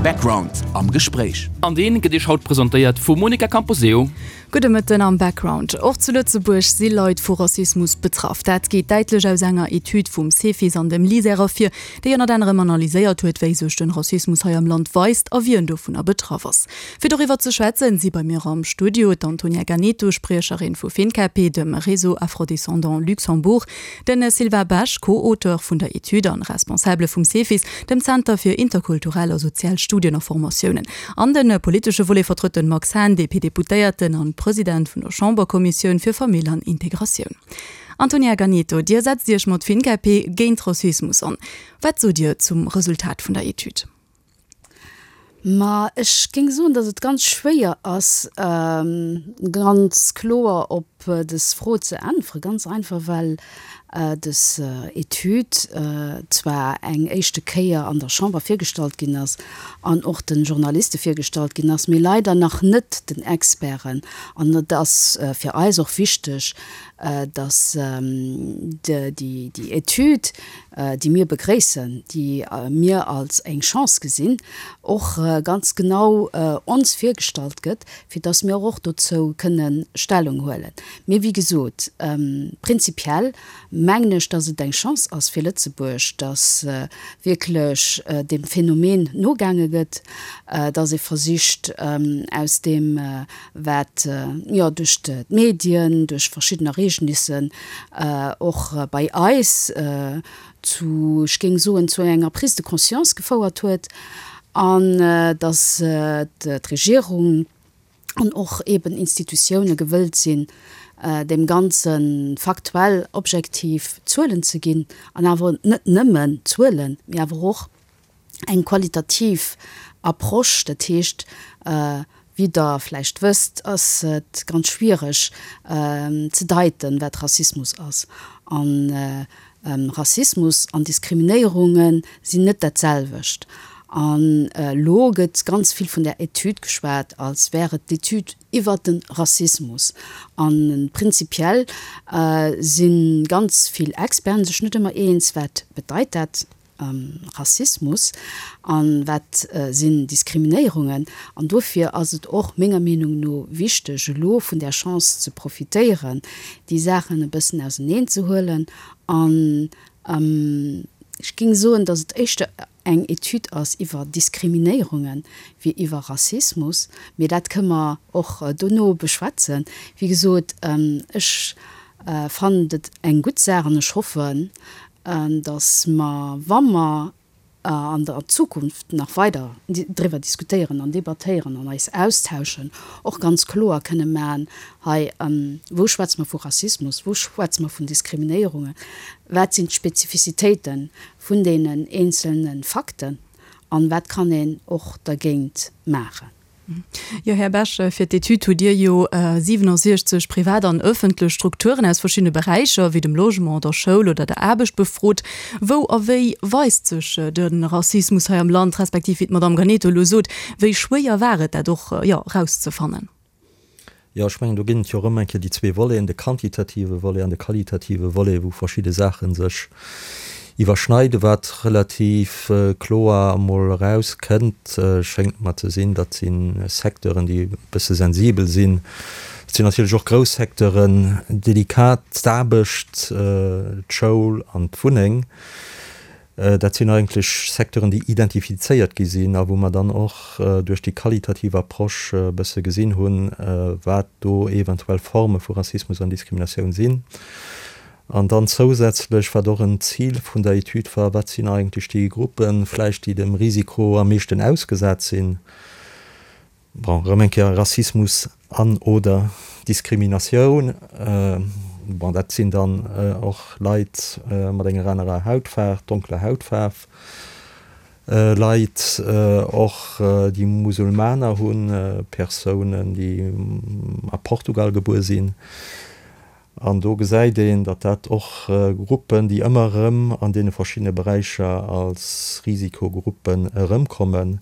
Background am Gespréich. An deen gëtt Iech haut presentéiert vum Monica Camposeo. Gudde Mëtten am Background. Och zu Lëtzebuerg si Leit vu Rassismus betraff. Dat geet däitlech aus enger Etüd vum Cefis an dem LISER ervir, déi ënnert anerem analyséiert huet, wéi sech den Rassismus hei am Land weist a wien dovunner betraff ass. Fir doriwwer ze schwätzen, si bei mir am Studio d'Antonia Ganeto, Spriecherin vu FINCAPE, dem Réseau Afro-Descendants Luxembourg, Den Sylvain Besch, Co-Auteur vun der Etüd an Responsabele vum Cefis, dem Zenter fir interkulturell a sozial Studien a Formatiounen. An de politesche Volet vertrëtt den Max Hahn, DP-Deputéierten an President vun der Chamberkommissioun fir Famill an Integratioun. Antonia Ganeto, Dir setzt Iech mat FINCAPE géint Rassismus an. Wat sot Dir zum Resultat vun der Etüd? Ma ech géing soen, datt et ganz schwéier ass, ganz kloer op dës Fro ze äntweren. Ganz einfach, well dës Etüd zwar eng éischte Kéier an der Chamber virgestallt ginn ass an och de Journaliste virgestallt ginn ass, mee leider nach net den Experten. An et ass fir eis och wichteg, datt déi Etüd, déi mir begréissen, déi mir als eng Chance gesinn, och ganz genau ons virgestallt gëtt, fir dass mir och dozou kënne Stellung huelen. Mee wéi gesot, prinzipiell mengen ech, dass et eng Chance ass fir Lëtzebuerg, dass wierklech deem Phänomen nogaange gëtt, dass ee versicht aus deem, wat jo duerch d'Medien, duerch verschidden Ereegnissen och bei eis zu, ech géing soen, zu enger Prise de conscience gefouert huet, an datt d'Regierung an och eeben Institutioune gewëllt sinn, deem Ganze faktuell, objektiv Zuelen ze ginn, an awer net nëmmen Zuelen, mee awer och eng qualitativ Approche, dat heescht, wéi Der vläicht wësst, ass et ganz schwiereg ze deiten, wat Rassismus ass. A Rassismus an Diskriminéierunge sinn net dat selwecht. An elo gëtt ganz vill vun där Etüd geschwat, als wär et d'Etüd iwwert de Rassismus. A prinzipiell si ganz vill Experten sech net ëmmer eens, wat bedeit dat Rassismus an wat sinn Diskriminéierungen. An dofir ass et och menger Meenung no wichteg, elo vun där Chance ze profitéieren, déi Saachen e bëssen auseneen ze huelen. An ech géing soen, datt et éischter eng Etüd ass iwwer Diskriminéierunge wéi iwwer Rassismus. Mee dat kënne mer och dono beschwätzen. Wéi gesot, ech fannen et eng gutt Saach an ech hoffen, dass mer, wa mer an der Zukunft nach weider driwwer diskutéieren an debattéieren an eis austauschen, och ganz kloer kënne maachen, hei, wou schwätze mer vu Rassismus, wou schwätze mer vun Diskriminéierungen, wat sinn d'Spezifizitéite vun deenen eenzelne Fakten an wat kann een och dergéint maachen. Jo, Här Bech, fir d'Etüd hutt Dir jo 67 privat an ëffentlech Strukturen aus verschiddene Beräicher, wéi dem Logement, der Schoul oder der Aarbecht befrot. Wou a wéi weist sech de Rassismus hei am Land, respektiv, wéi d'Madamm Ganeto elo sot, wéi schwéier war et, dat och, jo, erauszefannen? Jo, ech mengen, do ginn et jo erëm eng Kéier déi zwee Voleten, de quantitative Volet an de qualitative Volet, wou verschidde Saache sech iwwerschneiden. Wat relativ kloer emol erauskënnt, schéngt mer ze sinn, dat si Secteuren, déi e bësse sensibel sinn. Dat sinn natierlech och grouss Secteuren, delikat, d'Aarbecht, d'Schoul an d'Wunneng. Dat sinn eigentlech Secteuren, déi identifizéiert gi sinn a wou mer dann och duerch déi qualitativ Approche e bësse gesinn hunn, wat do eventuell Forme vu Rassismus an Diskriminatioun sinn. An dann zousätzlech, wat och en Zil vun der Etüd war, wat sinn eigentlech déi Gruppen vläicht, déi dem Risiko am meeschten ausgesat sinn? Bon, erëm eng Kéier Rassismus an, oder Diskriminatioun. Bon, dat sinn dann och Leit mat enger anerer Hautfaarf, donkeler Hautfaarf, Leit och, déi Musulmaner hunn, Persounen, déi a Portugal gebuer sinn. An do gesäit een, datt dat och Gruppen, déi ëmmer erëm an deene verschiddene Beräicher als Risikogruppen erëmkommen,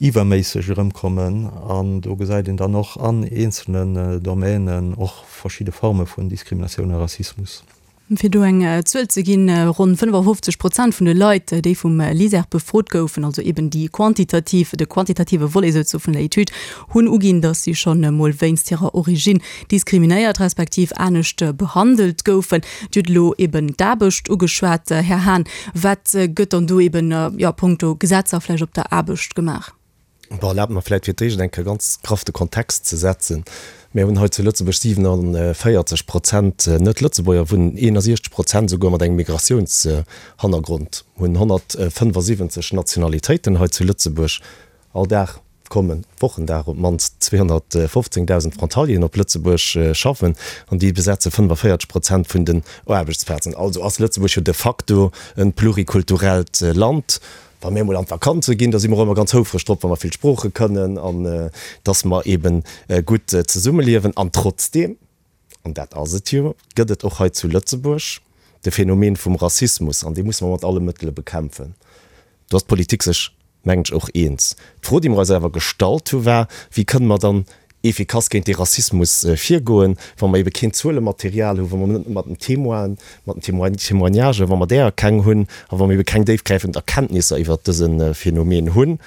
iwwerméisseg erëmkommen an do gesäit een dann och an eenzelnen Domänen och verschidde Forme vun Diskriminatioun a Rassismus. Fir do eng Zuel ze ginn, Ronn 55 Prozent vun de Leit, déi vum LISER befrot goufen, also eben déi quantitativ, de quantitative Volet souzesoe vun der Etüd, hunn uginn, datt si schonn emol wéinst hirer Originn diskriminéiert respektiv anescht behandelt goufen. Dir hutt elo eben d'Aarbecht ugeschwat, Här Hahn. Wat gëtt dann do eben, jo, punkto Gesetzer vläicht op der Aarbecht gemaach? Bon, erlaabt mer vläit fir d'éischt eng Kéier ganz graff de Kontext ze setzen. Mir hunn hei zu Lëtzebuerg 47 Prozent Net-Lëtzebuerger wunnen, 61 Prozent esouguer mat engem Migratiounshannergrond, hunn 175 Nationalitéiten hei zu Lëtzebuerg. All Dag kommen, Wochendag, op d'mannst 215.000 Frontalieren op Lëtzebuerg schaffen an déi besetze 45 Prozent vun den Aarbechtsplazen. Also ass Lëtzebuerg jo de facto e plurikulturellt Land. Wa mir emol an d'Vakanze ginn, da si mer och ëmmer ganz houfreg drop, wa mer vill Sprooche kënnen an dass mer eebe gutt zesummeliewen. An trotzdeem, an dat ass et jo, gëtt et och hei zu Lëtzebuerg de Phänomen vum Rassismus an dee musse mer mat alle Mëttele bekämpfen. Do ass d'Politik sech, mengen ech, och eens. D'Fro, déi mer eis awer gestallt hu war, Wéi kënne mer dann efficace géint dee Rassismus virgoen, wa mer ebe keen Zuelematerial hunn, wa mer net mat den Témoinen, mat den Témoignagen, wa mer däer keng hunn a wa mer ebe keng déifgräifend Erkenntnisser iwwert dëse Phänomen hunn.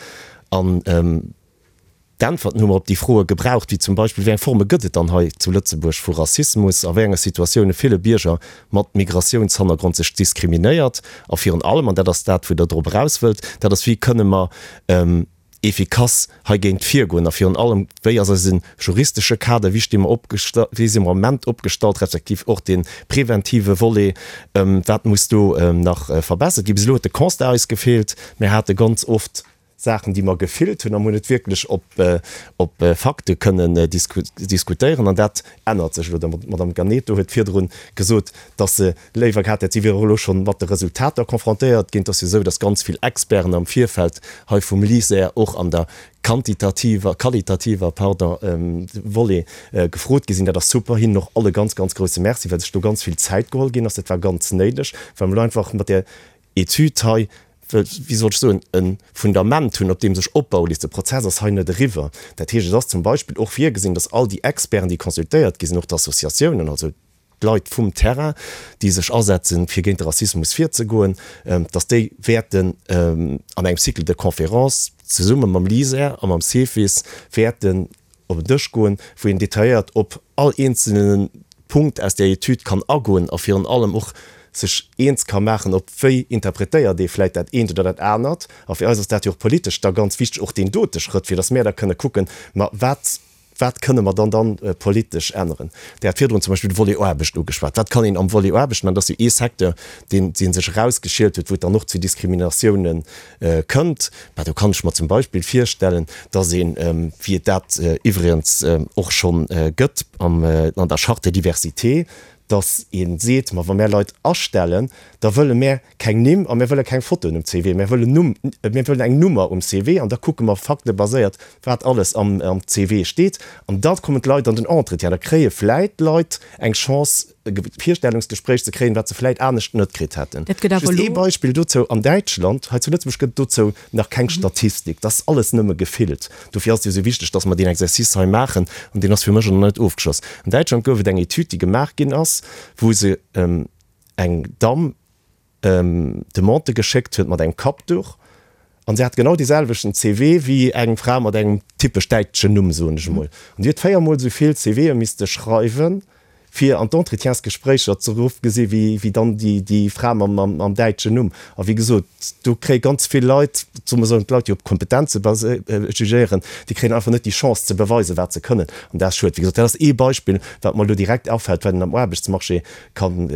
An d'Äntwerten hu mer op déi Froe gebraucht, wéi zum Beispill, Wéi eng Forme gëtt et dann hei zu Lëtzebuerg vu Rassismus? A wéi enge Situatioune fille Bierger mat Migratiounshannergrond sech diskriminéiert? A virun allem, an dat ass dat, wou Der drop eraus wëllt, dat ass, Wéi kënne mer efficace heigéint virgoen a virun allem, wéi ass eise juristesche Kader, wéi sti mer opgesta-, wéi si mer am Ament opgestallt, respektiv och dee preventive Volet, wat muss do nach verbessert ginn. Bis elo huet de Constat eis gefeelt. Mir hate ganz oft Saachen, déi mer gefillt hunn a mer hunn net wierklech op, op Fakte kënnen diskutéieren an dat ännert sech elo. D'Madame Ganeto huet virdru gesot, dass se léiwer gehat hätt, si wier och elo schonn mat de Resultater confrontéiert ginn. Et ass jo esou, datt ganz vill Experten am Virfeld hei vum LISER och an der quantitativer, qualitativer, pardon, Volet gefrot gi sinn. Dat ass super. Hinnen och all e ganz, ganz grouse Merci, well sech do ganz vill Zäit geholl ginn ass. Dat war ganz néideg, well mer elo einfach mat där Etüd hei, wéi soll ech soen, e Fundament hunn, op deem sech opbaue léisst. De Prozess ass hei net eriwwer. Dat heescht, et ass zum Beispill och virgesinn, datt all déi Experten, déi consultéiert gi sinn, och d'Associatiounen, also d'Leit vum Terrain, déi sech asetzen, fir géint de Rassismus virzegoen, dass déi wäerten an engem Cycle de conférences zesumme mam LISER a mam CEFIS wäerten op en Dësch goen, wou een detailléiert op all eenzelne Punkt aus där Etüd kann agoen a virun allem och sech eens ka maachen, op wéi interpretéiert ee vläicht dat eent oder dat anert. A fir eis ass dat jo och politesch da ganz wichteg, och deen dote Schrëtt, fir dass mär da kënne kucken, ma wat Wat kënne mer dann dann politesch änneren? Dir hat virdrun zum Beispill de Volet Aarbecht ugeschwat. Wat kann een am Volet Aarbecht maachen? Dat ass jo ee Secteur, deen, dee sech erausgeschielt huet, wou et dann och zu Diskriminatiounen kënnt. Bah, do kann ech mer zum Beispill virstellen, dass een, wéi et dat iwwregens och schonn gëtt am, an der Charte de diversité, dass ee seet, Ma wa mär Leit astellen, da wëlle mär Keng Nimm a mir wëlle keng Fotoen um CV. Mir wëllen Numm, mir wëllen eng Nummer um CV an da kucke mer faktebaséiert, wat alles am am CV steet. An da kommen d'Leit an den Entretien. Da kréie vläit d'Leit eng Chance, e Virstellungsgespréich ze kréien, wat se vläit anescht net kritt hätten. Dat gëtt awer Just ee elo. Beispill dozou, An Däitschland, hei zu Lëtzebuerg gëtt et dozou nach keng Statistik. Dat ass alles nëmme gefillt. Dofir ass et jo esou wichteg, dass mer deen Exercice hei maachen an deen ass fir mech och nach net ofgeschloss. An Däitschland gouf et eng Etüd, déi gemaach ginn ass, wou se eng Damm Demande geschéckt huet mat engem Kappduch an se hat genau dee selwechten CV wéi eng Fra mat engem typesch däitschen Numm, soen ech emol. An déi huet 4 mol esou vill CVe misste schreiwen, fir an d'Entretiensgespréicher ze eruff gesi wéi dann déi Fra mam däitschen Numm. A wéi gesot, do kréie ganz vill Leit, soe mer soen, d'Leit, déi op Kompetenze jugéieren, déi kréien einfach net déi Chance ze beweisen, wat se kënnen. An dat ass schued. Wéi gesot, dat ass ee Beispill, wat mer elo direkt afält, wat een am Aarbechtsmarché kann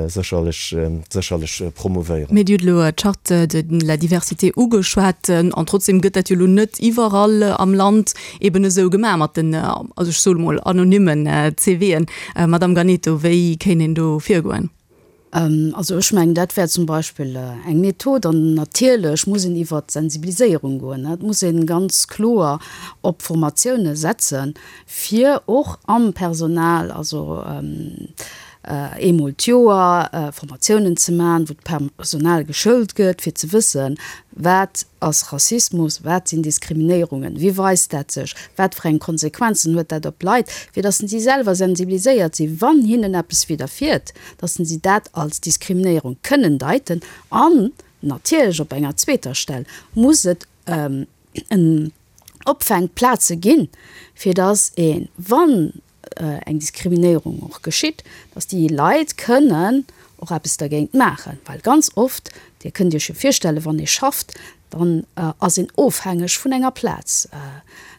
sécherlech sécherlech promouvéieren. Mee Dir hutt elo d'Charte de la diversité ugeschwat, an trotzdem gëtt dat jo elo net iwwerall am Land eben esou gemaach mat den, also ech soe mol anonymmen CVen. Madamm Ganeto, wéi kéint een do virgoen? Also ech mengen, dat wär zum Beispill eng Method. An natierlech muss een iwwert d'Sensibiliséierung goen. Et muss ee ganz kloer op Formatioune setzen, fir och am Personal, also. eemol d'Joer Formatiounen ze man, wou d'Personal geschoult gëtt, fir ze wëssen, wat ass Rassismus, wat sinn Diskriminéierungen, wéi weist dat sech, wat fir eng Konsequenzen huet dat op d'Leit, fir datt si selwer sensibiliséiert sinn, wann hinnen eppes widderfiert, datt si dat als Diskriminéierung kënnen deiten. An natierlech op enger zweeter Stell muss et en Opfänkplaze ginn, fir datt een, wann eng Diskriminéierung och geschitt, dass déi Leit kënnen och eppes dergéint maachen, well ganz oft, Dir kënnt Iech jo virstellen, wann ee schafft, dann ass een ofhängeg vun enger Plaz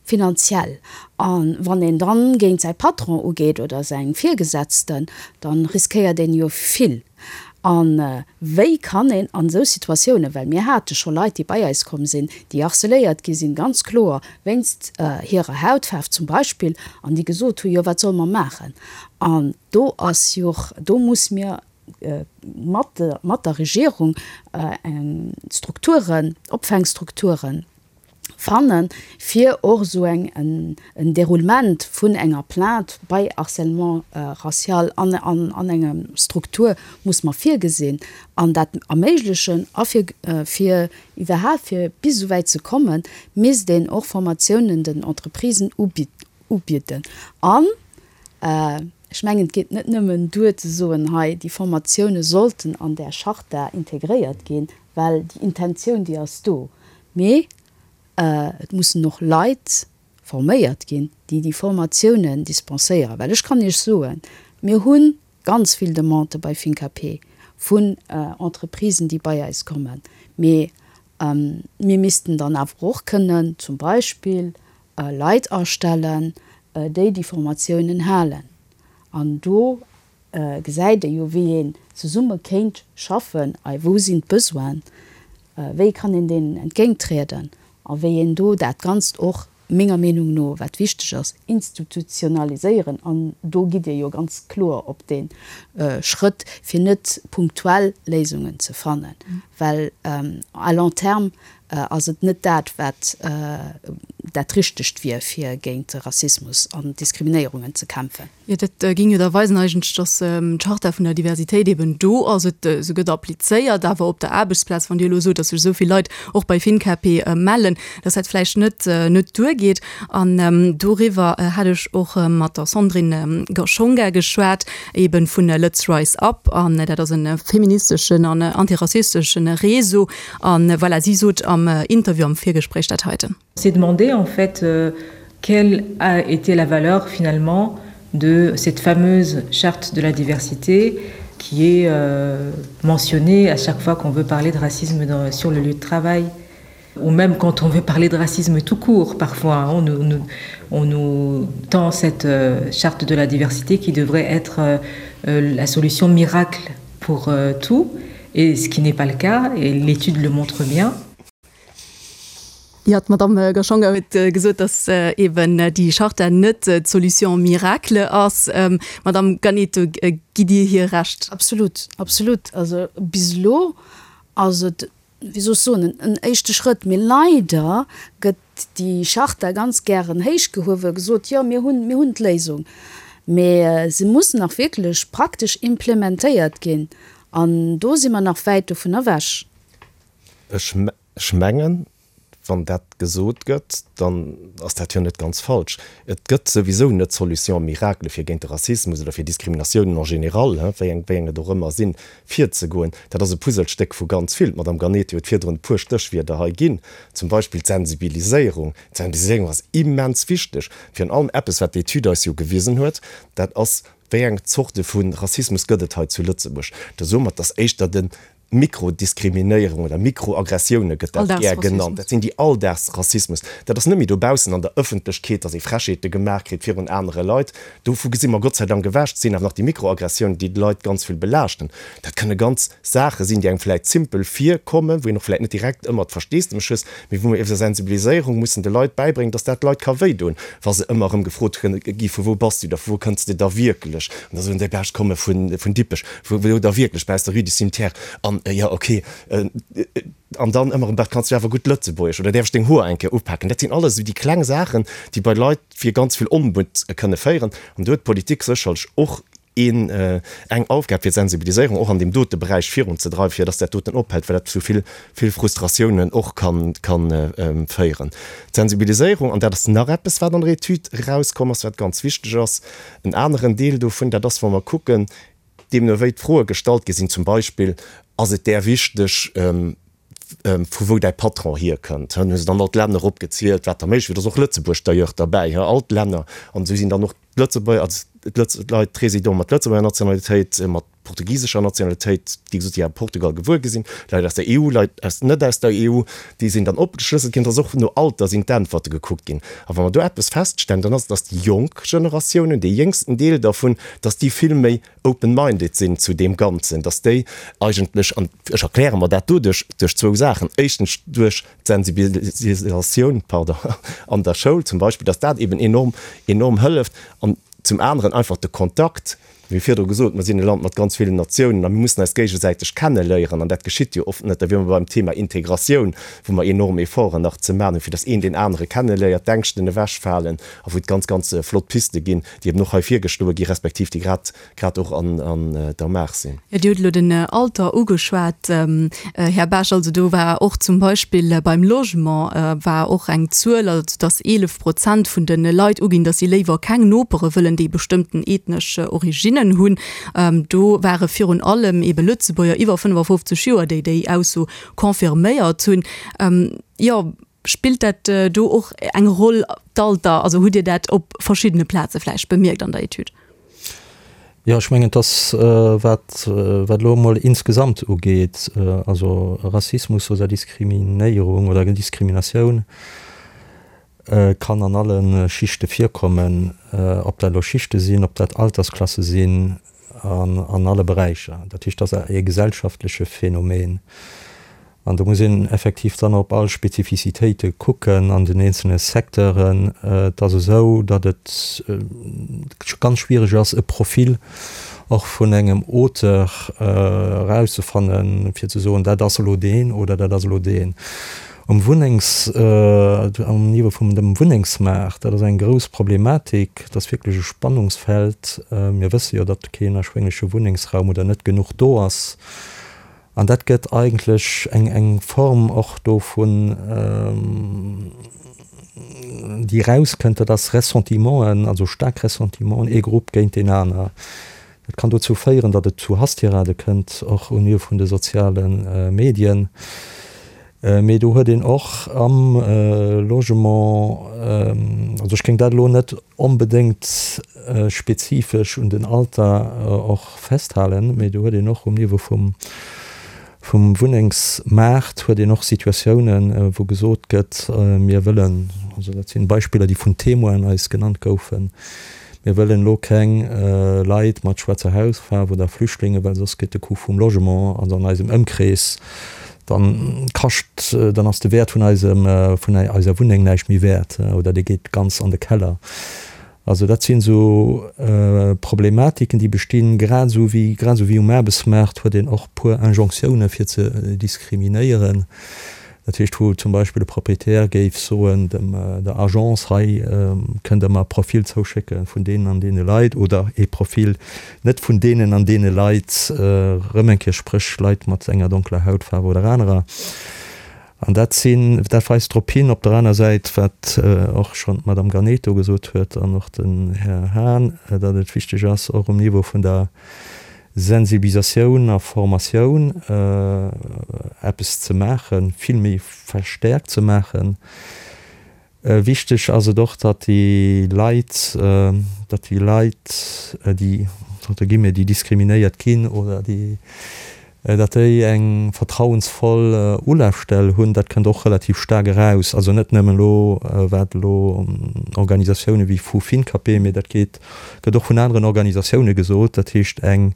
finanziell a wann een dann géint säi Patron ugeet oder seng Virgesetzten, dann riskéiert een jo vill. A wéi kann een an esou Situatiounen, well mir hate scho Leit, déi bei eis komm sinn, déi harceléiert gi sinn, ganz kloer wéinst hirer Hautfaarf zum Beispill, an déi gesot hu jo, wat solle mer maachen? An do ass jo, do muss mir mat, mat der Regierung eng Strukturen, Opfängstrukturen fannen, fir och esou eng en Déroulement vun enger Plainte bei Harcèlement racial an an enger Struktur muss mer virgesinn an dat erméiglechen. A fir fir iwwerhaapt fir bis esou wäit ze kommen, misst een och Formatiounen den Entreprisen ubidden. An ech mengen, et geet net nëmmen duer ze soen, hei déi Formatioune sollten an där Charta integréiert ginn, well déi Intentioun déi ass do. Mee et mussen och Leit forméiert ginn, déi déi Formatiounen dispenséieren. Well ech kann Iech soen, mir hu ganz vill Demandë bei FINCAP vun Entreprisen, déi bei eis kommen. Mee mir missten dann awer och kënnen zum Beispill Leit astellen, déi déi Formatiounen halen. An do gesäit ee jo, wéi een zesumme kéint schaffen, ei wou sinn d'Besoinen, wéi kann een deenen entgéinttrieden a wéi een do dat Ganzt och, menger Meenung no, wat wichteg ass, institutionaliséieren. An do gitt Dir jo ganz kloer op dee Schrëtt, fir net punktuell Léisungen ze fannen, well à long terme ass et net dat, wat dat Richtegt wier, fir géint de Rassismus an Diskriminéierungen ze kämpfen. Jo, dat géing jo da weisen eigentlech, dass d'Charta vun der Diversitéit eben do ass, et se gëtt applizéiert, awer op der Aarbechtsplaz, wann Dir elo sot, dass sech esou vill Leit och bei FinCape mellen, dass dat vläicht net net duergeet. An doriwwer hat ech och mat der Sandrine Gashonga geschwat, eben vun Lëtz Rise Up, an dat ass e feministeschen an antirassisteschen Réseau. An voilà, si sot am Interview, am Virgespréich dat heiten. S'est demandé en fait euh, quelle a été la valeur finalement de cette fameuse charte de la diversité qui est euh, mentionnée à chaque fois qu'on veut parler de racisme dans, sur le lieu de travail ou même quand on veut parler de racisme tout court parfois on nous, nous, on nous tend cette euh, charte de la diversité qui devrait être euh, euh la solution miracle pour euh, tout et ce qui n'est pas le cas et l'étude le montre bien. Jo, d'Madamm Gashonga huet gesot, datt eeben déi Charta net d'Solution miracle ass. Madamm Ganeto, gitt Dir hir Recht? Absolut, absolut. Also bis elo ass et, wéi soll ech soen, en éischte Schrëtt. Mee leider gëtt déi Charta ganz gären héichgehuewen, gesot, jo mir hunn, mir hunn d'Léisung. Mee se muss nach wierklech praktesch implementéiert ginn an do si mer nach wäit dovun ewech. Ech mengen, wann dat gesot gëtt, dann ass dat jo net ganz falsch. Et gëtt souwisou net d'Solution miracle, fir géint de Rassismus oder fir Diskriminatiounen en général, wéi eng wéi eng et och ëmmer sinn, virzegoen. Dat ass e Puzzlestéck vu ganz vill. D'Madame Ganetti huet virdrun e puer Stéchwierder hei ginn, zum Beispill d'Sensibiliséierung. D'Sensibiliséierung ass immens wichteg. Virun allem eppes, wat d'Etüd eis jo gewisen huet, dat ass, Wéi eng Zorte vu Rassismus gëtt et hei zu Lëtzebuerg? Da soe mer, et ass éischter de Mikrodiskriminéierung oder Mikroaggressioune gëtt dat gär genannt. Dat sinn déi Alldagsrassismus. Dat ass net méi dobaussen an der Ëffentlechkeet, datt ee Frechheete gemaach kritt virun anere Leit. Dovu gesi mer Gott sei Dank ewech. Et sinn awer nach déi Mikroaggressiounen, déi d'Leit ganz vill belaaschten. Dat kënne ganz Saache sinn, déi engem vläicht simpel virkommen, wou een och vläicht net direkt ëmmer d'Versteesdemech hues, mee wou mer iwwer Sensibiliséierung mussen de Leit bäibréngen, datt dat d'Leit ka wéidoen, wa se ëmmer erëm gefrot gi vu wou bass du da, vu wou kënns de da wierklech? An da soen déi, Bah, ech komme vun Dippech. Wou da wierklech bei aus der Rue du Cimetière an jo ok an dann ëmmer erëm, Kanns du awer gutt Lëtzebuergesch oder däerf ech deng Hoer eng Kéier upaken? Dat sinn alles esou déi kleng Saachen, déi bei Leit fir ganz vill Onmutt kënne féieren an do huet d'Politik sécherlech och. een, eng Aufgab fir d'Sensibiliséierung och an deem dote Beräich virunzedreiwen, fir dass dat doten ophält, well dat zu vill, vill Frustratiounen och kann, kann féieren. D'Sensibiliséierung, an dat ass nach eppes, wat an der Etüd erauskomm ass, wat ganz wichteg ass, en aneren Deel dovun, dat ass, wa mer kucken, deemno wéi d'Froe gestallt gi sinn, zum Beispill, Ass et där wichteg, vu wou däi Patron hierkënnt? Hunn se dann all d'Länner opgezielt, wat da méiglech wier. Do ass och Lëtzebuerg d'ailleurs derbäi, all d'Länner. An esou sinn dann och d'Lëtzebuerger, also d'Leit, d'Résidenten mat Lëtzebuerger Nationalitéit, mat portugisescher Nationalitéit, déi gesot, déi a Portugal gewuer gi sinn, Leit aus der EU, Leit aus net aus der EU, déi sinn dann opgeschlësselt ginn. Et ass och no Alter sinn d'Äntwerte gekuckt ginn. A wa mer do eppes feststellen, dann ass et, dass déi jonk Generatiounen, dee jéngsten Deel dervun, dass déi vill méi open-minded sinn zu deem Ganzen, dass déi eigentlech, an ech erkläre mer dat doduerch, duerch zwou Saachen, éischtens duerch d'Sensibilisatioun, pardon, an der Schoul zum Beispill, dass dat eben enorm, enorm hëlleft, an zum aneren einfach de Kontakt, wéi virdru gesot, mer sinn e Land mat ganz villen Natiounen a mir mussen eis géigesäiteg kenneléieren an dat geschitt jo oft net. Da wiere mer beim Thema Integratioun, wou mer enorm Efforten nach ze maachen hunn, fir dass een deen anere kenneléiert, d'Ängschten ewechfalen a wou et ganz, ganz flott Piste ginn, déi eben och hei virgeschloe gi respektiv déi grad grad och an an der Maach sinn. Jo, Dir hutt elo den Alter ugeschwat, Här Baasch. Also do war och zum Beispill beim Logement war och eng Zuel, also datt 11 Prozent vun de Leit uginn, datt si léiwer keng Nopere wëllen, déi bestëmmten ethnesch Originnen hunn. Do ware virun allem ebe Lëtzebuerger iwwer 55 Joer, déi déi Ausso confirméiert hunn. Jo. Spillt dat do och eng Roll, d'Alter? Also hutt Dir dat op verschiddene Plaze vläicht bemierkt an der Etüd? Jo, ech mengen, dass wat wat elo emol insgesamt ugeet, also Rassismus oder Diskriminéierung oder Diskriminatioun kann an alle Schichte virkommen, ob dat elo Schichte sinn, ob dat Altersklasse sinn, an an alle Beräicher. Dat heescht, dat ass e gesellschaftleche Phänomen. An do muss een effektiv dann op all Spezifizitéite kucken an den eenzelne Secteuren. Et ass esou, datt et ganz schwiereg ass, e Profil och vun engem Auteur erauszefannen, fir ze soen, dat ass elo deen oder dat ass elo deen. Um Wunnengs, um Niveau vum dem Wunnengsmaart, dat ass eng grouss Problematik, dat ass wierklech e Spannungsfeld. Mir wësse jo, datt keen erschwéngleche Wunnengsraum oder net genuch do ass. An dat gëtt eigentlech eng eng Form och do vun, déi erauskënnt, dat ass Ressentimenten, also staark Ressentimenten, ee Grupp géint deen aner. Dat kann dozou féieren, datt et zu Hasstirade kënnt, och au Niveau vun de soziale Medien. Mee do huet een och am Logement, also ech géing dat elo net onbedéngt spezifesch un den Alter och festhalen, mee do huet een och um Niveau vum vum Wunnengsmaart huet een och Situatiounen, wou gesot gëtt, mir wëllen, also dat sinn Beispiller, déi vun Témoinen eis genannt goufen, Mir wëllen elo keng Leit mat schwaarzer Hautfaarf oder Flüchtlinge, well soss gëtt de Coût vum Logement, also an eisem Ëmkrees, dann kascht, dann ass de Wäert vun eisem, vun eiser Wunneng näischt méi wäert oder dee geet ganz an de Keller. Also dat sinn esou Problematiken, déi bestinn. Grad esou wéi, grad esou wéi um Aarbechtsmaart huet een och puer Injonctiounen fir ze diskriminéieren. Dat heescht, wou zum Beispill e Proprietär géif soen dem der Agence, hei kënnt Der mer e Profil zouschécke vun deenen an deene Leit oder ee Profil net vun deenen an deene Leit, erëm eng Kéier, spréch Leit mat enger donkeler Hautfaarf oder anerer. An dat sinn, dat weist drop hin, op der aner Säit, wat och schonn d'Madame Ganeto gesot huet an och den Här Hahn, datt et wichteg ass, och um Niveau vun der Sensibilisatioun a Formatioun eppes ze maachen, vill méi verstäerkt ze maachen. Wichteg ass et och, datt déi Leit, datt déi Leit, déi, entre guillemets, déi diskriminéiert ginn oder déi, datt déi eng vertrauensvoll Ulafstell hunn. Dat kënnt och relativ staark eraus. Also net nëmmen elo, wat elo Organisatioune wéi FuFiNCAPé, mee dat geet Gëtt och vun aneren Organisatioune gesot, dat heescht eng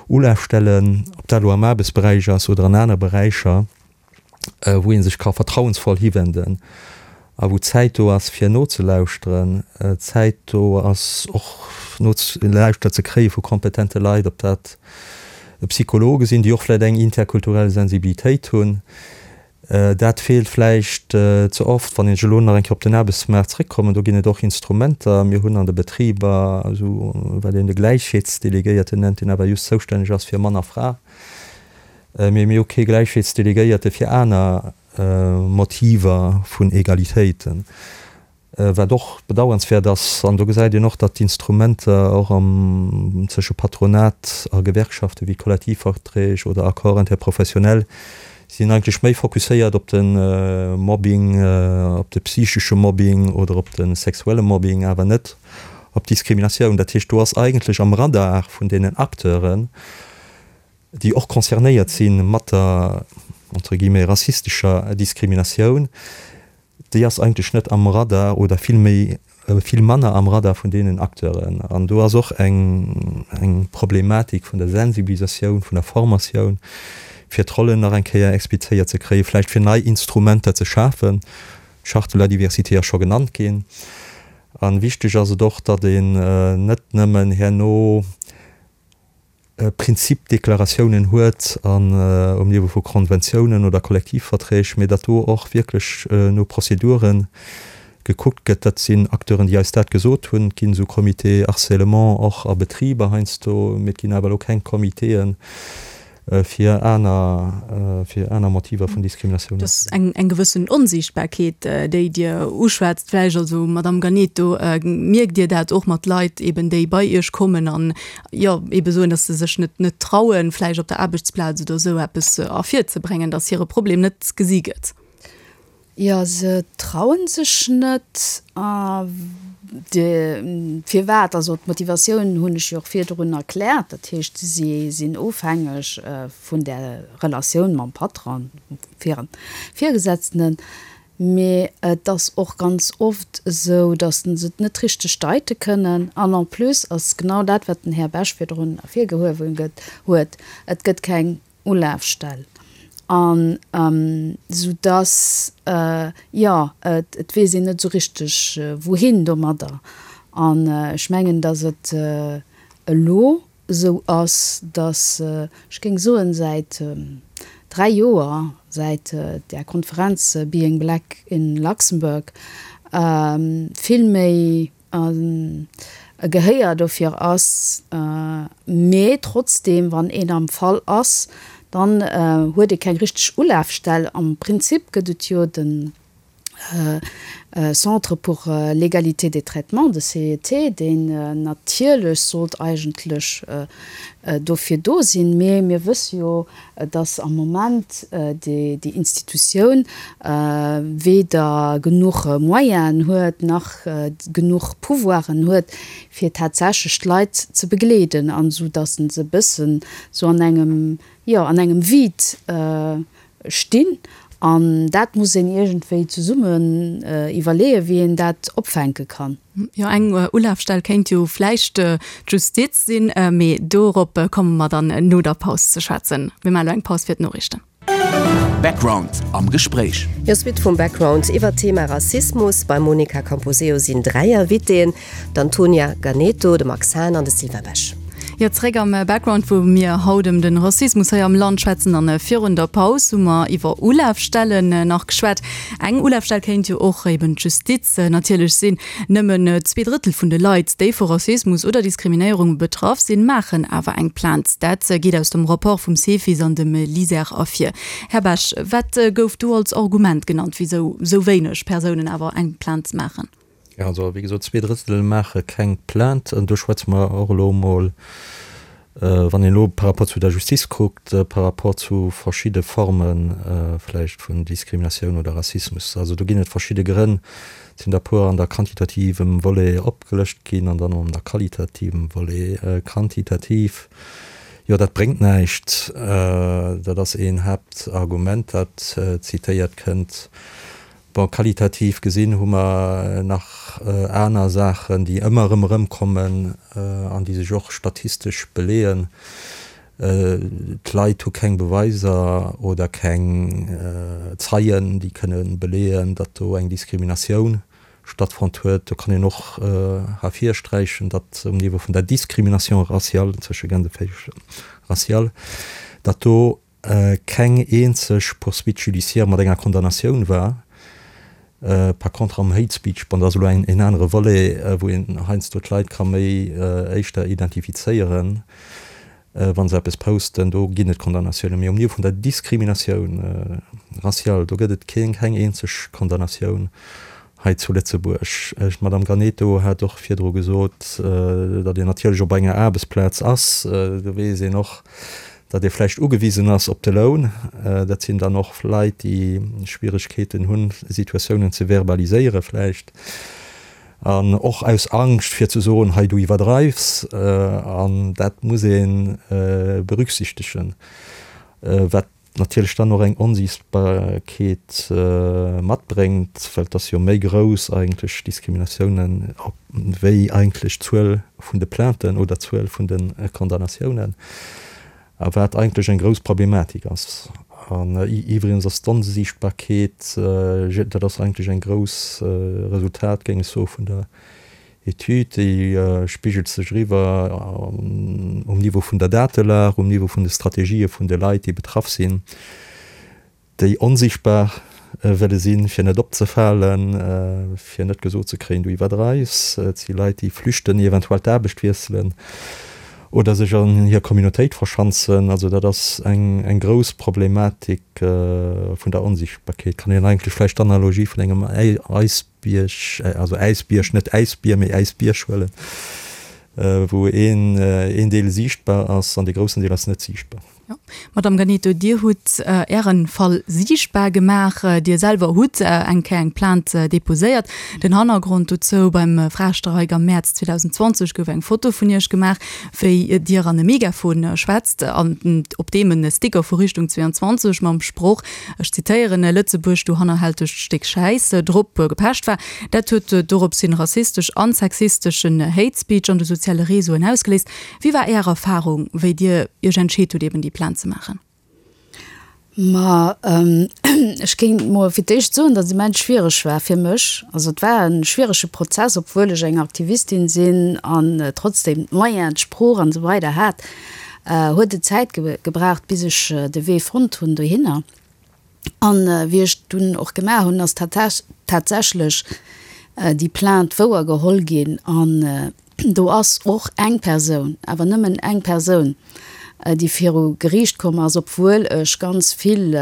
Ulafstelle, ob dat elo am Aarbechtsberäich ass oder an aner Beräicher, wou ee sech ka vertrauensvoll hiwenden a wou Zäit do ass fir nozelauschteren, Zäit do ass och nogelauschtert ze kréie vu kompetente Leit, ob dat Psychologe sinn, déi och vläicht eng interkulturell Sensibilitéit hunn. Dat feelt vläicht ze oft. Wann ech elo nach eng Kéier op den Aarbechtsmaart zréckkommen, do ginn et och Instrumenter. Mir hunn an de Betriber esou wat een de Gläichheetsdelegéierten nennt, deen awer just zoustänneg ass fir Mann a Fra. Mee mir hu kee Gläichheetsdelegéierte fir aner Motiver vun Egalitéiten. Wat och bedauernswäert ass, an do gesäit een och, datt d'Instrumenter och am zwësche Patronat a Gewerkschafte wéi Kollektivverträg oder Accords interprofessionnels sinn eigentlech méi fokusséiert op de Mobbing, op de psychesche Mobbing oder op de sexuelle Mobbing, awer net op d'Diskriminatioun. Dat heescht, do ass eigentlech am Radar vun deenen Acteuren, déi och concernéiert si mat der, entre guillemets, rassistescher Diskriminatioun, déi ass eigentlech net am Radar oder vill méi, vill manner am Radar vun deenen Acteuren. An do ass och eng, eng Problematik vun der Sensibilisatioun, vun der Formatioun, fir d'Rollen nach eng Kéier explizéiert ze kréien, vläicht fir nei Instrumenter ze schafen. D'Charte de la diversité ass scho genannt ginn. A wichteg ass et och, datt een net nëmmen herno, Prinzipdeklaratiounen huet an um Niveau vu Konventiounen oder Kollektivverträg, mee datt do och wierklech no Prozedure gekuckt gëtt. Dat sinn Acteuren, déi eis dat gesot hunn. Et ginn esou Comités harcèlement och a Betriber heiansdo, mee et ginn awer elo keng Comitéen, fir aner, fir aner Motiver vun Diskriminatioun. Et ass eng, eng gewëssen Onsiichtbarkeet, déi Dir uschwätzt vläicht. Also, Madamm Ganeto, mierkt Dir dat och mat Leit eben, déi bei Iech kommen an, jo, ebe soen, datt se sech net, net trauen, vläicht op der Aarbechtsplaz oder esou eppes ervirzebréngen, datt hire Problem net gesi gëtt? Jo, se trauen sech net. A firwat? Also d'Motivatioun hunn ech jo och virdrun erkläert. Dat heescht, si sinn ofhängeg vun där Relatioun mam Patron, hirem Virgesetzten. Mee et ass och ganz oft esou, datt se et net richteg deite kënnen. An en plus ass genau dat, wat den Här Bech virdrun ervirgehuewen huet, Et gëtt keng Ulafstell an sou dass, jo, et weess een net esou richteg wouhin domadder. An ech mengen, dass et elo esou ass, dass, ech géing soen, säit 3 Joer, säit där Konferenz Being Black in Luxembourg, vill méi e Gehéier dofir ass, mee trotzdeem, wann een am Fall ass, dann huet ee keng richteg Ulafstell. Am Prinzip gëtt et jo de Centre pour l'égalité des traitements, de CET, deen natierlech sollt eigentlech dofir do sinn, mee mir wësse jo, dass am Moment déi Institutioun weder genuch Moyenen huet, nach genuch Pouvoiren huet, fir tatsächlech d'Leit ze begleeden, an esou dass se e bëssen esou an engem, jo, an engem Vide stinn. An dat muss een iergendwéi zesummen iwwerleeën, wéi een dat opfänke kann. Jo, eng Ulafstell kéint jo vläicht d'Justiz sinn, mee dorop komme mer dann no der Paus ze schwätzen. Mir maachen elo eng Paus fir d'Noriichten. Background am Gespréich. Jo, Suite vum Background iwwert d'Thema Rassismus. Beim Monica Camposeo sinn 3 Invitéen, D'Antonia Ganeto, de Max Hahn an de Sylvain Besch. Jo, zeréck am Background, wou mir haut ëm de Rassismus hei am Land schwätzen. An virun der Paus hu mer iwwer Ulafstellen nach geschwat. Eng Ulafstell kéint jo och eben d'Justiz natierlech sinn. Nëmmen 2 Drëttel vun de Leit, déi vu Rassismus oder Diskriminéierung betraff sinn, maachen awer eng Plainte. Dat geet aus dem Rapport vum Cefis an dem LISER ervir. Här Besch, wat gouf do als Argument genannt, wisou sou wéineg Persounen awer eng Plainte maachen? Jo, also wéi gesot, 2 Drëttel maache keng Plainte. An do schwätze mer och elo emol, wann een elo par rapport zu der Justiz kuckt, par rapport zu verschidde Forme vläicht vun Diskriminatioun oder Rassismus. Also do ginn et verschidde Grënn. Et sinn der e puer an der quantitativem Volet opgelëscht ginn an dann an der qualitativem Volet. Quantitativ, jo, dat bréngt näischt. Dat ass een Haaptargument, dat zitéiert kënnt. Bon, qualitativ gesinn hu mer nach aner Saachen, déi ëmmer erëm erëmkommen an déi sech och statistesch beleeën. D'Leit hu keng Beweiser oder keng Zeien, déi kënne beleeën, datt do eng Diskriminatioun stattfonnt huet. Do kann een och ervirsträichen, datt um Niveau vun der Discrimination raciale, tësche Gänseféisch raciale, datt do. keng eenzeg Poursuite judiciaire mat enger Condamnatioun war. Par contre am Hate Speech, bon, dat ass elo en anere Volet, wou een heiansdo d'Leit ka méi éischter identifizéieren, wa se eppes posten, do ginn et Condamnatiounen. Mee um Niveau vun der Diskriminatioun raciale, do gëtt et keng eenzeg Condamnatioun hei zu Lëtzebuerg. D'Madame Ganeto hat och virdru gesot, datt een natierlech op enger Aarbechtsplaz ass. Do weess een och, datt ee vläicht ugewisen ass op de Loun. Dat sinn dann och Leit, déi Schwieregkeeten hunn, Situatiounen ze verbaliséiere vläicht. An och aus Angscht fir ze soen, hei du iwwerdreifs. An dat muss ee berücksichtegen. Wat natierlech dann och eng Onsiichtbarkeet matbréngt, well et ass jo méi grouss eigentlech Diskriminatiounen wéi eigentlech d'Zuel vun de Plainten oder d'Zuel vun de Condamnatiounen, a wat eigentlech eng grouss Problematik ass. An iwwregens ass d'Onsiichtbarkeet, dat ass eigentlech eng grouss Resultat, géing ech soen, vun der Etüd, déi spigelt sech eriwwer um Niveau vun der Datelag, um Niveau vun de Strategië vun de Leit, déi betraff sinn, déi onsichtbar wëlle sinn, fir net opzefalen, fir net gesot ze kréien, du iwwerdreifs. Et si Leit, déi flüchten, eventuell d'Aarbecht wiesselen oder sech an hir Communautéit verschanzen. Also dat ass eng grouss Problematik vun der Onsichtbarkeet. Kann een eigentlech vläicht d'Analogie vun engem Eis. Bierg, also Äisbierg, net Äisbier, mee Äisbierg huelen, wou een een Deel siichtbar ass an dee groussen Deel ass net siichtbar. Jo. Madamm Ganeto, Dir hutt Ären Fall siichtbar gemaach. Dir selwer hutt eng Kéier eng Plainte deposéiert. Den Hannergrond dozou, Beim Fraestreik am Mäerz 2020 gouf eng Foto vun Iech gemaach, wéi Dir an e Megafon schwätzt an op deem e Sticker vu Richtung 22 mam Sproch ech zitéieren, Lëtzebuerg, du hannerhältegt Stéck Schäiss, drop gepecht war. Dat huet dorops hin rassistesch an sexisteschen Hate Speech an de soziale Réseauen ausgeléist. Wéi war Är Erfarung, wéi Dir Iech entscheet hutt, eben déi Plainte ze maachen? Ma ech géing mol fir d'éischt soen, datt et immens schwiereg war fir mech. Also et war e schwierege Prozess, obwuel ech eng Aktivistin sinn an trotzdem d'Moyenen, d'Sprooch an esou weider hat. Huet et Zäit gebraucht, bis ech de Wee fonnt hunn dohinner. An wéi ech dunn och gemaach hunn, ass tatsächlech déi Plainte wouer geholl ginn. An do ass och eng Persoun, awer nëmmen eng Persoun, déi viru Geriicht komm ass, obwuel ech ganz vill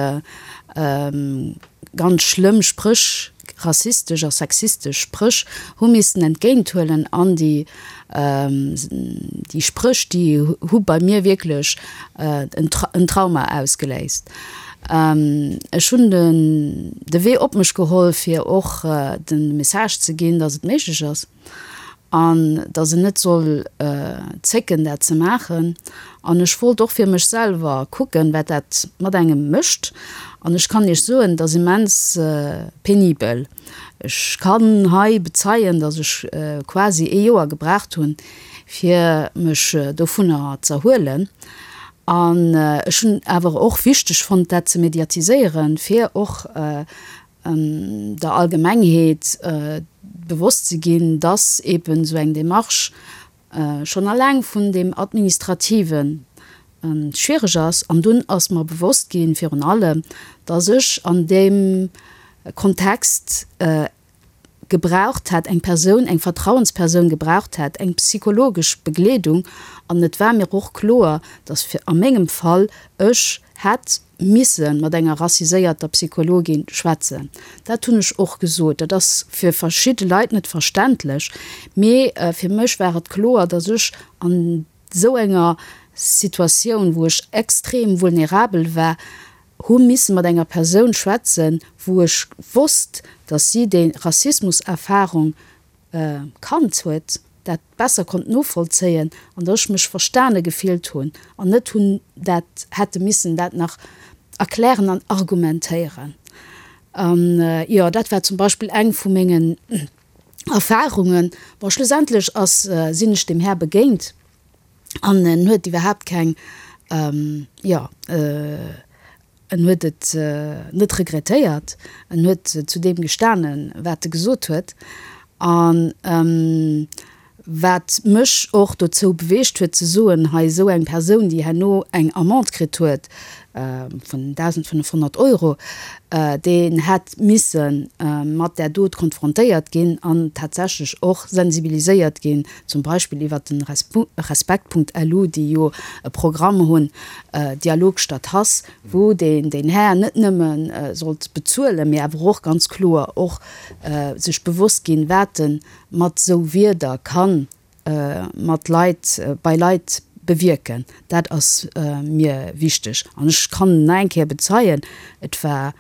ganz schlëmm Spréch, rassistesch a sexistesch Spréch hu missen entgéint huelen an déi déi Spréch, déi hu bei mir wierklech en Trauma ausgeléist. Ech hunn den de Wee op mech geholl, fir och de Message ze ginn, datt et méiglech ass. An datt en net soll zécken, dat ze maachen. An ech wollt och fir mech selwer kucken, wat dat mat engem mécht. An ech kann Iech soen, et ass immens penibel. Ech kann hei bezeien, datt ech quasi ee Joer gebraucht hunn, fir mech dovunner z'erhuelen. An ech hunn awer och wichteg fonnt, dat ze mediatiséieren, fir och der Allgemengheet bewosst ze ginn, dass eben esou eng Démarche schonn alleng vun deem Administrative schwiereg ass. An dunn ass mer bewosst ginn, virun allem, dass ech an deem Kontext gebraucht hätt, eng Persoun, eng Vertrauenspersoun gebraucht hätt, eng psychologesch Begleedung. An et war mir och kloer, dass fir a mengem Fall ech hätt misse mat enger rassiséierter Psychologin schwätzen. Dat hunn ech och gesot. Dat ass fir verschidde Leit net verständlech, mee fir mech war et kloer, dass ech an esou enger Situatioun, wou ech extrem vulnerabel war, hu misse mat enger Persoun schwätzen, wou ech wosst, dass si déi Rassismuserfahrung kannt huet, dat besser konnt novollzéien an dass ech mech verstane gefillt hunn an net hunn dat hätte missen dat nach erklären an argumentéieren. An jo, dat war zum Beispill eng vu mengen Erfahrungen. Bon, schlussendlech ass, sinn ech deem Här begéint an en huet iwwerhaapt keng, jo, En huet et net regrettéiert, en huet zu deem gestanen, wat e gesot huet. A wat mech och dozou beweegt huet ze soen, hei esou eng Persoun, déi herno eng Amende kritt huet. vun 1.500 Euro, deen hätt misse mat där Dot konfrontéiert ginn an tatsächlech och sensibiliséiert ginn, zum Beispill iwwert de Respekt.lu, déi jo e Programm hunn, Dialog statt Hass, wou deen deen Här net nëmme sollt bezuelen, mee awer och ganz kloer och sech bewosst ginn, wat e mat esou Wierder kann mat Leit, bei Leit bewierken. Dat ass mir wichteg. An ech kann nach eng Kéier bezeien, et war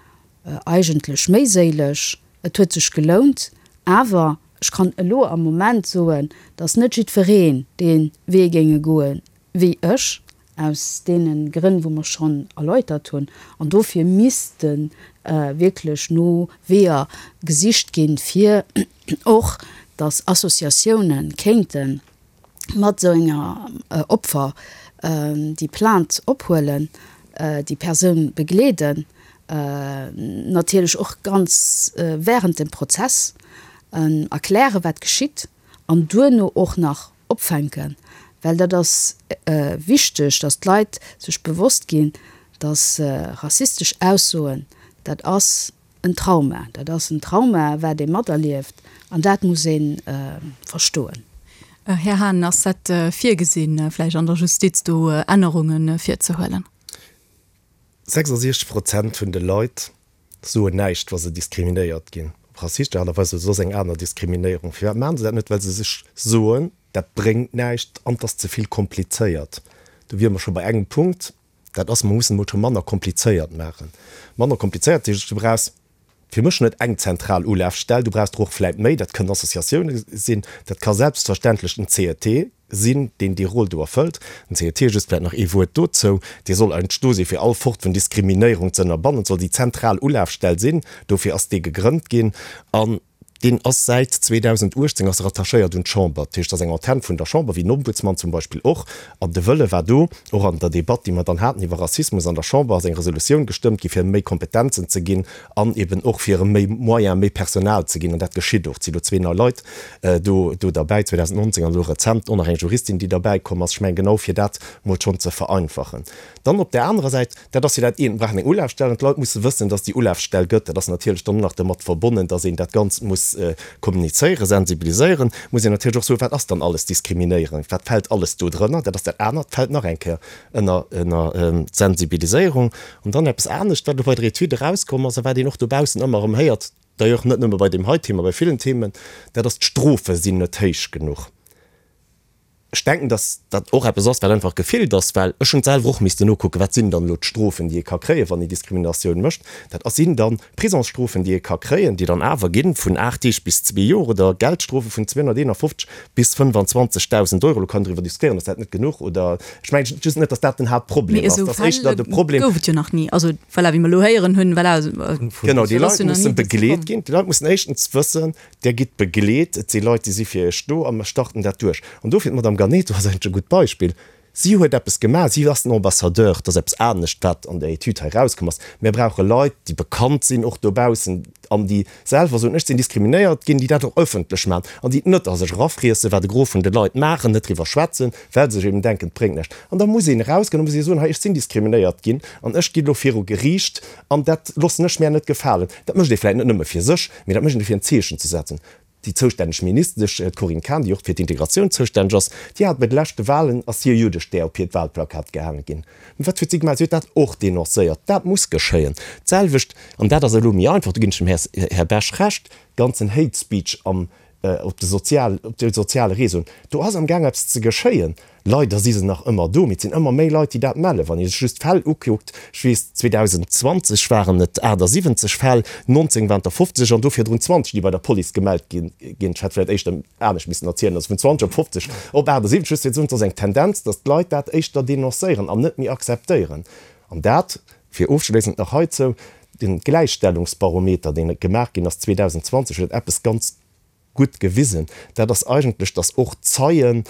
eigentlech méiséileg, et huet sech gelount. Awer ech kann elo am Moment soen, datt net jiddwereen dee Wee géinge goe wéi ech, aus deene Grënn, wou mer schonn erläutert hunn. An dofir misste wierklech no Weeër gesicht ginn, fir och, datt Associatioune kéinte mat esou enger Opfer déi Plainte ophuelen, déi Persoun begleeden, natierlech och ganz während dem Prozess erklären, wat geschitt an duerno och nach opfänken, well dat ass wichteg, datt d'Leit sech bewosst ginn, datt rassistesch Aussoen, dat ass en Trauma, dat ass en Trauma, wat ee materlieft an dat muss ee verstoen. Här Hahn, ass dat virgesinn, vläicht an der Justiz do Ännerunge virzehuelen? 66 Prozent vun de Leit soen näischt, wa se diskriminéiert ginn, op rassistesch Aart a Weis oder soss eng aner Diskriminéierung. Firwat maachen se dat net? Well se sech soen, dat bréngt näischt an 't ass ze vill komplizéiert. Do wiere mer scho bei engem Punkt, dat ass, mer mussen emol scho manner komplizéiert maachen. Manner komplizéiert heescht, du brauchs fir mech net eng zentral Ulafstell, du brauchs der och vläit méi, dat kënnen Associatioune sinn, dat ka selbstverständlech den CET sinn, deen déi Roll do erfëllt. Den CET, just vläit nach ee Wuert dozou, dee soll eigentlech do sinn, fir all Fort vun Diskriminéierung ze ënnerbannen, soll déi zentral Ulafstell sinn, dofir ass dee gegrënnt ginn. An deen ass säit 2018 ass e rattachéiert un d'Chamber, dat heescht, ass eng Antenn vun der Chamber, wéi den Ombudsman zum Beispill och. An de Wëlle war do, och an der Debatt, déi mer dann haten iwwer Rassismus an der Chamber, ass eng Resolutioun gestëmmt gi fir méi Kompetenzen ze ginn an eben och fir erëm méi Moyens, méi Personal ze ginn. An dat geschitt och. Et si lo zwee nei Leit do do derbäi, 2019 an elo rezent och nach eng Juristin, déi derbäi komm ass. Ech mengen, genau fir dat mol schonn ze vereinfachen. Dann op där anerer Säit, dat ass jo dat eent, mir brauchen eng Ulafstell an d'Leit musse wëssen, dass et déi Ulafstell gëtt. Dat ass natierlech dann och nach domat verbonnen, dass een dat Ganzt muss kommunizéieren, sensibiliséieren. Muss een natierlech och soen, wat ass dann alles Diskriminéierung, wat fält alles do drënner. Dat ass dat anert, fält nach eng Kéier ënner ënner d'Sensibiliséierung. An dann eppes anescht, wat elo bei der Etüd erauskomm ass a wat een och dobaussen ëmmer erëm héiert, d'ailleurs net nëmme bei deem hei Thema, bei villen Themen, dat ass, d'Strofe sinn net héich genuch. Ech denken, dass dat och eppes ass, wat einfach gefillt ass, well ech hunn et selwer och missten nokucken, wat sinn dann elo d'Strofen, déi ee ka kréien, wann ee Diskriminatioun mécht. Dat ass sinn dann Prisongsstrofen, déi ee ka kréien, déi dann awer ginn vun 8 Deeg bis zwee Joer oder Geldstrofe vun 251 bis 25.000 Euro. Elo kann een driwwer diskutéieren, ass dat net genuch oder, ech mengen just net, dass dat den Haaptproblem Mee ass. esou Dat ass éischter Fäll de Problem. gouf et jo nach ni. Also voilà, wéi mer elo héieren hunn, voilà, Genau, déi dat ass Leit jo nach mussen ni dozou begleet komm. ginn. Déi Leit mussen éischtens wëssen, Där gitt begleet, et si Leit, déi si fir Iech do a mer starten dat duerch. An dofir, d'Madame Ganeto ass eigentlech e gutt Beispill, si huet eppes gemaach, si ass den Ambassadeur, dat ass eppes anescht, wat an der Etüd hei erauskomm ass. Mir brauche Leit, déi bekannt sinn, och dobaussen, an déi selwer soen, ech sinn diskriminéiert ginn, déi dat och ëffentlech maachen an déi et net a sech erafriessen, wat e Gros vun de Leit maachen, net driwwer schwätzen, well se sech eben denken, et bréngt näischt. An da muss een erausgoen, da muss ee soen, hei, ech sinn diskriminéiert ginn an ech ginn elo viru Geriicht an dat loossen ech mär net gefalen. Dat mécht ee vläicht net nëmme fir sech, Mee dat mécht een, fir en Zeechen ze setzen. Déi zoustänneg Ministesch, d'Corinne Cahen, déi och fir d'Integratioun zoustänneg ass, déi hat bei de leschte Wahlen, ass hir Juddestär op hiert Wahlplakat gehaange ginn. Mee wat huet si gemaach? Si huet dat och denoncéiert. Dat muss geschéien. D'selwecht, an dat ass elo méi einfach, do ginn ech dem Här Bech Recht, ganzen Hate Speech am, op de sozial, op de soziale Réseauen, do ass amgaang eppes ze geschéien. Leider si se nach ëmmer do, mee et sinn ëmmer méi Leit, déi dat mellen. Wann ee sech just d'Fäll ukuckt, ech weess, 2020 waren et 78 Fäll, 19 waren et der 50 an do virdrun 20, déi bei der Police gemellt gi ginn. Ech hätt vläicht éischter anescht missen erzielen, also vun 20 op 50 op 78, just fir ze soen, et ass eng Tendenz, datt d'Leit dat éischter denoncéieren an net méi akzeptéieren. An dat, fir ofschléissend nach heizou, de Gläichstellungsbarometer, deen gemaach ginn ass 2020, huet eppes ganz gutt gewisen, dat ass eigentlech, datt och Zeien.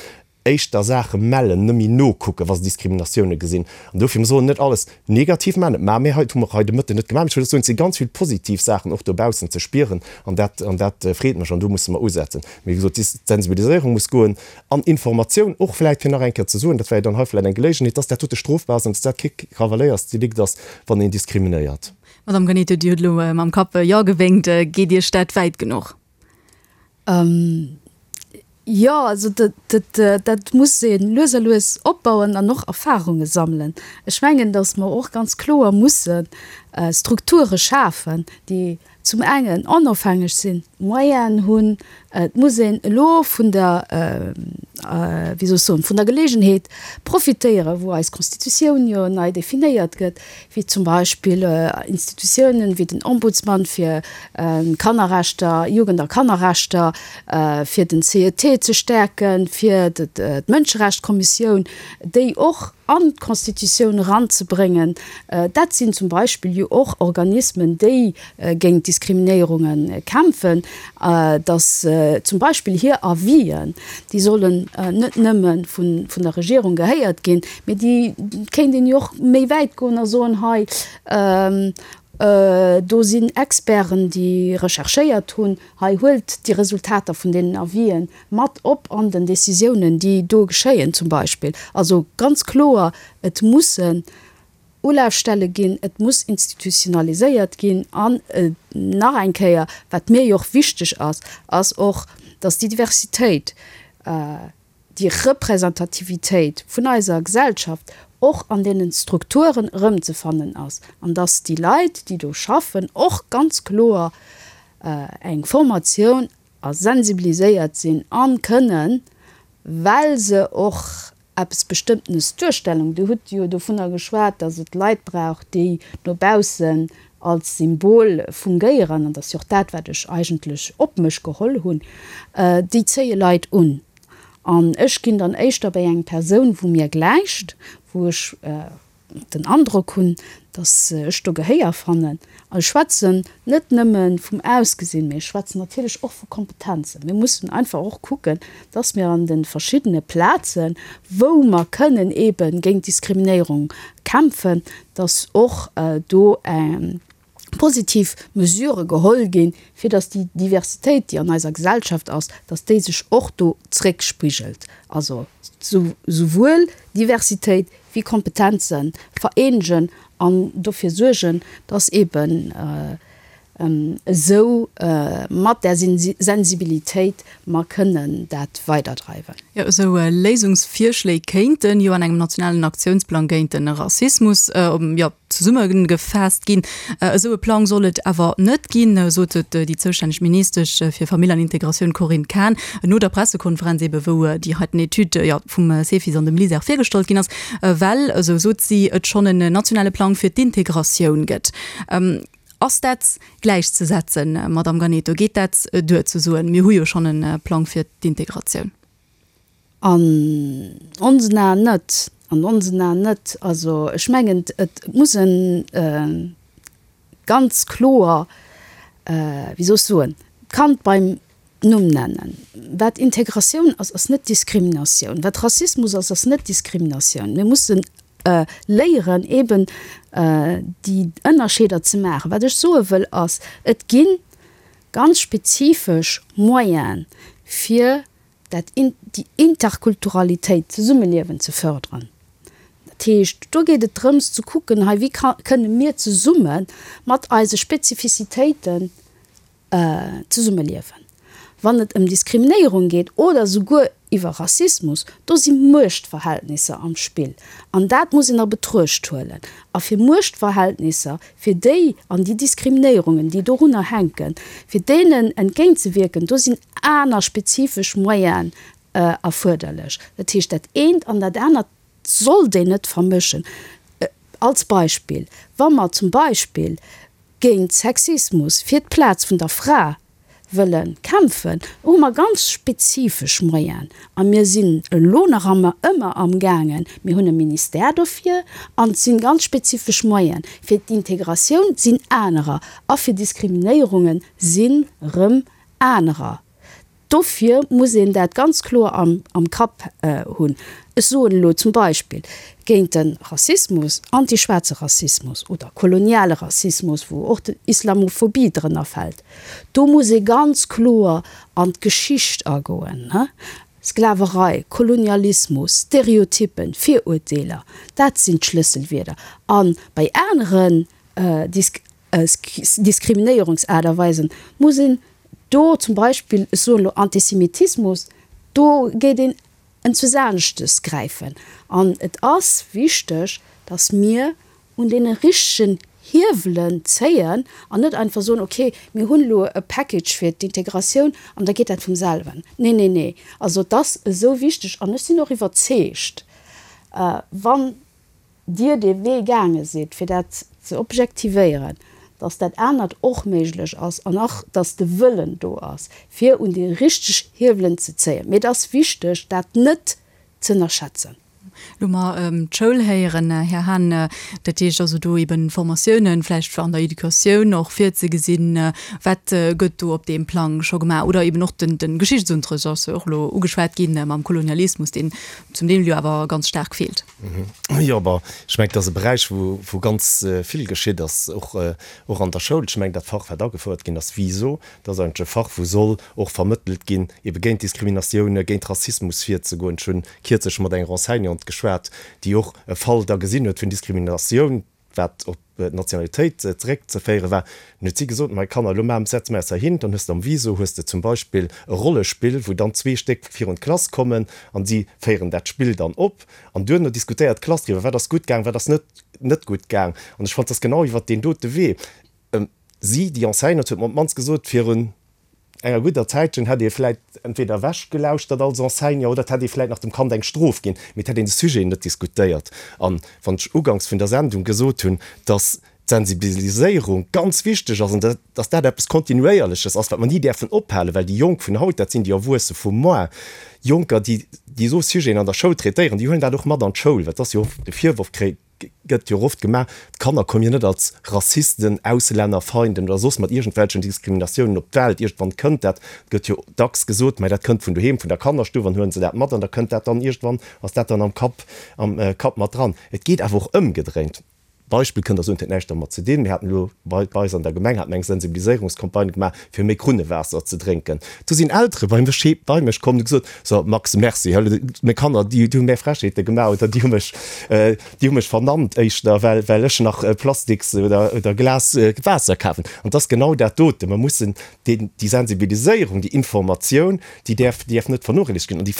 Éischter Saache mellen, net méi nokucken, wa se Diskriminatioune gesinn. An dofir, mir sollen net alles negativ maachen, dat maache mir hei, dat hu mer hei de Mëtten net gemaach, mee ech wëll just soen, et si ganz vill positiv Saachen och dobaussen ze spieren an dat, an dat freet mech an do musse mer usetzen. Mee wéi gesot, d'Sensibiliséierung muss goen an Informatioun och vläicht, fir nach eng Kéier ze soen, dat wär jo dann hei vläicht eng Geléigenheet, dass dat dote strofbar ass an dass dat kee Kavaléiersdelikt ass, wann een diskriminéiert. Madame Ganeto, Dir hutt elo mam Kapp Jo gewénkt. Geet Iech dat wäit genuch? Jo, also dat muss ee lues a lues opbauen an och Erfarunge sammelen. Ech mengen, datt mer och ganz kloer musse Strukture schafen, déi zum engen onofhängeg sinn, Moyenen hunn. Et muss een elo vun der, wéi soll ech soen, vun der Geleegenheet profitéieren, wou eis Constitutioun jo nei definéiert gëtt, wéi zum Beispill Institutiounen wéi den Ombudsman fir Kannerrechter, Jugend a Kannerrechter, fir den CET ze stäerken, fir d'Mënscherechtkommissioun, déi och an d'Constitutioun eranzebréngen. Dat sinn zum Beispill jo och Organismen, déi géint Diskriminéierunge kämpfen, dass zum Beispill hir Avisen, déi sollen net nëmme vun der Regierung gehéiert ginn, mee déi kéint een jo och méi wäit goen a soen, hei do sinn Experten, déi recherchéiert hunn, hei huelt déi Resultater vun deenen Avisen mat op an den Décisiounen, déi do geschéien zum Beispill. Also ganz kloer, et mussen Ulafstelle ginn, et muss institutionaliséiert ginn an nach eng Kéier, wat mir jo och wichteg ass, ass och, dass déi Diversitéit, déi Representativitéit vun eiser Gesellschaft och an deenen Strukturen erëmzefannen ass an dass déi Leit, déi do schaffen, och ganz kloer eng Formatioun a sensibiliséiert sinn a kënnen, well se och eppes Bestëmmtenes duerstellen. Dir hutt jo dovunner geschwat, dass et Leit brauch, déi no baussen als Symbol fungéieren, an dat ass jo och dat, wat ech eigentlech op mech geholl hunn, déi zéie Leit un. An ech ginn dann éischter bei eng Persoun, wou mir gläicht, wou ech den Androck hunn, datt ech do Gehéier fannen. An ech schwätzen net nëmme vum Ausgesinn, mee ech schwätzen natierlech och vu Kompetenzen. Mir mussen einfach och kucken, datt mir an de verschiddene Plazen, wou mer kënnen eebe géint Diskriminéierung kämpfen, datt och do positiv Mesurë geholl ginn, fir datt déi Diversitéit, déi an eiser Gesellschaft ass, datt déi sech och do zréckspigelt. Also souwuel Diversitéit wéi Kompetenze vereenegen an dofir suergen, datt eeben esou mat där Sensibilitéit mer kënnen dat weiderdreiwen. Jo, esou Léisungsvirschléi kéinten jo an engem nationalen Aktiounsplang géint de Rassismus, jo, zesummegefaasst ginn. Esou e Plang soll et awer net ginn, sot et déi zoustänneg Ministesch fir Famill an Integratioun Corinne Cahen no der Pressekonferenz ebe wou déi heiten Etüd jo vum Cefis an dem LISER virgestallt ginn ass, well, esou sot si, et schonn en nationale Plang fir d'Integratioun gëtt. Ass dat gläichzesetzen, Madamm Ganeto? Geet dat duer ze soen, mir hu jo schonn e Plang fir d'Integratioun? An onsen Aen net. An onsen Aen net. Also ech mengen, et muss e ganz kloer, wéi soll ech soen, d'Kand beim Numm nennen. Wat Integratioun ass, ass net Diskriminatioun. Wat Rassismus ass, ass net Diskriminatioun. Mir mussen léieren, eeben déi Ënnerscheeder ze maachen. Wat ech soe wëll ass, et gi ganz spezifesch Moyene fir dat déi Interkulturalitéit, d'Zesummeliewen ze förderen. Dat heescht, do geet et drëms ze kucken, hei wéi kënne mir zesumme mat eise Spezifizitéiten zesummeliewen. Wann et ëm Diskriminéierung geet oder souguer iwwer Rassismus, do si Muechtverhältnisser am Spill an dat muss een a Betruecht huelen. A fir Muechtverhältnisser, fir déi an déi Diskriminéierungen, déi dorunner hänken, fir deenen entgéintzewierken, do sinn aner spezifesch Moyenen erfuerderlech. Dat heescht, dat eent an dat anert sollt een net vermëschen. Als Beispill, wa mer zum Beispill géint Sexismus, fir d'Plaz vun der Fra wëlle kämpfen, hu mer ganz spezifesch Moyenen. A mir sinn elo nach ëmmer amgaangen, mir hunn e Ministère dofir an et si ganz spezifesch Moyenen. Fir d'Integratioun sinn anerer a fir Diskriminéierunge sinn erëm anerer. Dofir muss een dat ganz kloer am, am Kapp hunn. Ech soen elo zum Beispill, géint de Rassismus, antischwaarze Rassismus oder koloniale Rassismus, wou och d'Islamophobie drënner fält, do muss ee ganz kloer an d'Geschicht agoen, Sklaverei, Kolonialismus, Stereotyppen, Virurteeler, dat sinn d'Schlësselwierder. A bei aneren Diskriminéierungsaart a Weisen muss een do zum Beispill, ech soen elo Antisemitismus, do geet een enzusaneschtes gräifen. An et ass wichteg, datt mir un deene richtegen Hiewelen zéien an net einfach soen, okay, mir hunn elo e Package fir d'Integratioun an da geet dat vum selwen. Nee, nee, nee. Also et ass esou wichteg an ech sinn och iwwerzeegt, wann Dir dee Wee gaange sidd, fir dat ze objektivéieren, dass dat anert och méiglech ass an och, dass de Wëllen do ass, fir un déi richteg Hiewelen ze zéien. Mee et ass wichteg, dat net z'ënnerschätzen. Lo mer d'Schoul héieren, Här Hahn, dat heescht also do eben Formatiounen vläicht an der Educatioun och virzegesinn. Wat gëtt do op deem Plang scho gemaach? Oder eben och de Geschichtsunterrecht ass jo och elo ugeschwat ginn mam Kolonialismus, deen zum Deel jo awer ganz staark feelt. Jo, bon, ech mengen, et ass e Beräich, wou, wou ganz vill geschitt ass, och, och an der Schoul. Ech mengen, dat Fach, wat agefouert ginn ass, VISO, dat ass eigentlech e Fach, wou soll och vermëttelt ginn, ebe géint Diskriminatioune, géint Rassismus virzegoen. Ech hunn kierzlech mat enger Enseignante geschwat, déi och e Fall da gesinn huet vun Diskriminatioun, wat op d'Nationalitéit zeréckzeféiere war. Dann huet si gesot, Mei Kanner, elo maachen, setze mer eis heihin, dann hues de am VISO hues de zum Beispill e Rollespill, wou dann zwee Stéck virun d'Klass kommen an si féieren dat Spill dann op an duerno diskutéiert d'Klass driwwer, wat ass gutt gaang, wat ass net net gutt gaang. An ech fand, et ass genau iwwert deen dote Wee. Si, déi Enseignante, huet mer op d'mannst gesot, virun enger gudder Zäitchen hätt ee vläit entweder ewechgelauschtert als Enseignant oder et hätt ee vläit nach dem Kand eng Strof ginn, mee et hätt een de Sujet net diskutéiert. An wann ech uganks vun der Sendung gesot hunn, dass d'Sensibiliséierung ganz wichteg ass an dass dat eppes Kontinuéierleches ass, wat mer ni däerfen ophalen, well déi Jonk vun haut, dat sinn déi Erwuesse vu moar, Jonker, déi déi esou Sujeten an der Schoul traitéieren, déi huelen dat och mat an d'Schoul, well et ass jo oft de Virworf, gëtt jo och oft gemaach, d'Kanner kommen jo net als Rassisten, Auslännerfeinden oder soss mat iergendwelchen Diskriminatiounen op d'Welt. Iergendwann kënnt dat, gëtt jo dacks gesot, mä dat kënnt vun doheem, vun der Kannerstuff an huelen se dat mat an da kënnt dat dann iergendwann, ass dat dann am Kapp, am Kapp mat dran. Et geet awer och ëmgedréint. Beispill kënnt der soen, et huet näischt dermat ze dinn, mir haten elo bei eis an der Gemeng hate mer eng Sensibiliséierungscampagne gemaach, fir méi Krunnewaasser ze drénken. Do sinn Eltere bei mech bei mech komm, hu gesot, So Max, merci, meng Kanner, déi hu mär Frechheete gemaach oder déi hu mech, déi hu mech vernannt éischter, well, well ech nach Plastiks oder, oder Glas Waasser kafen. An et ass genau dat dote, mer mussen déi, déi Sensibiliséierung, déi Informatioun, déi däerf, déi däerf net vernochléissegt ginn an déi,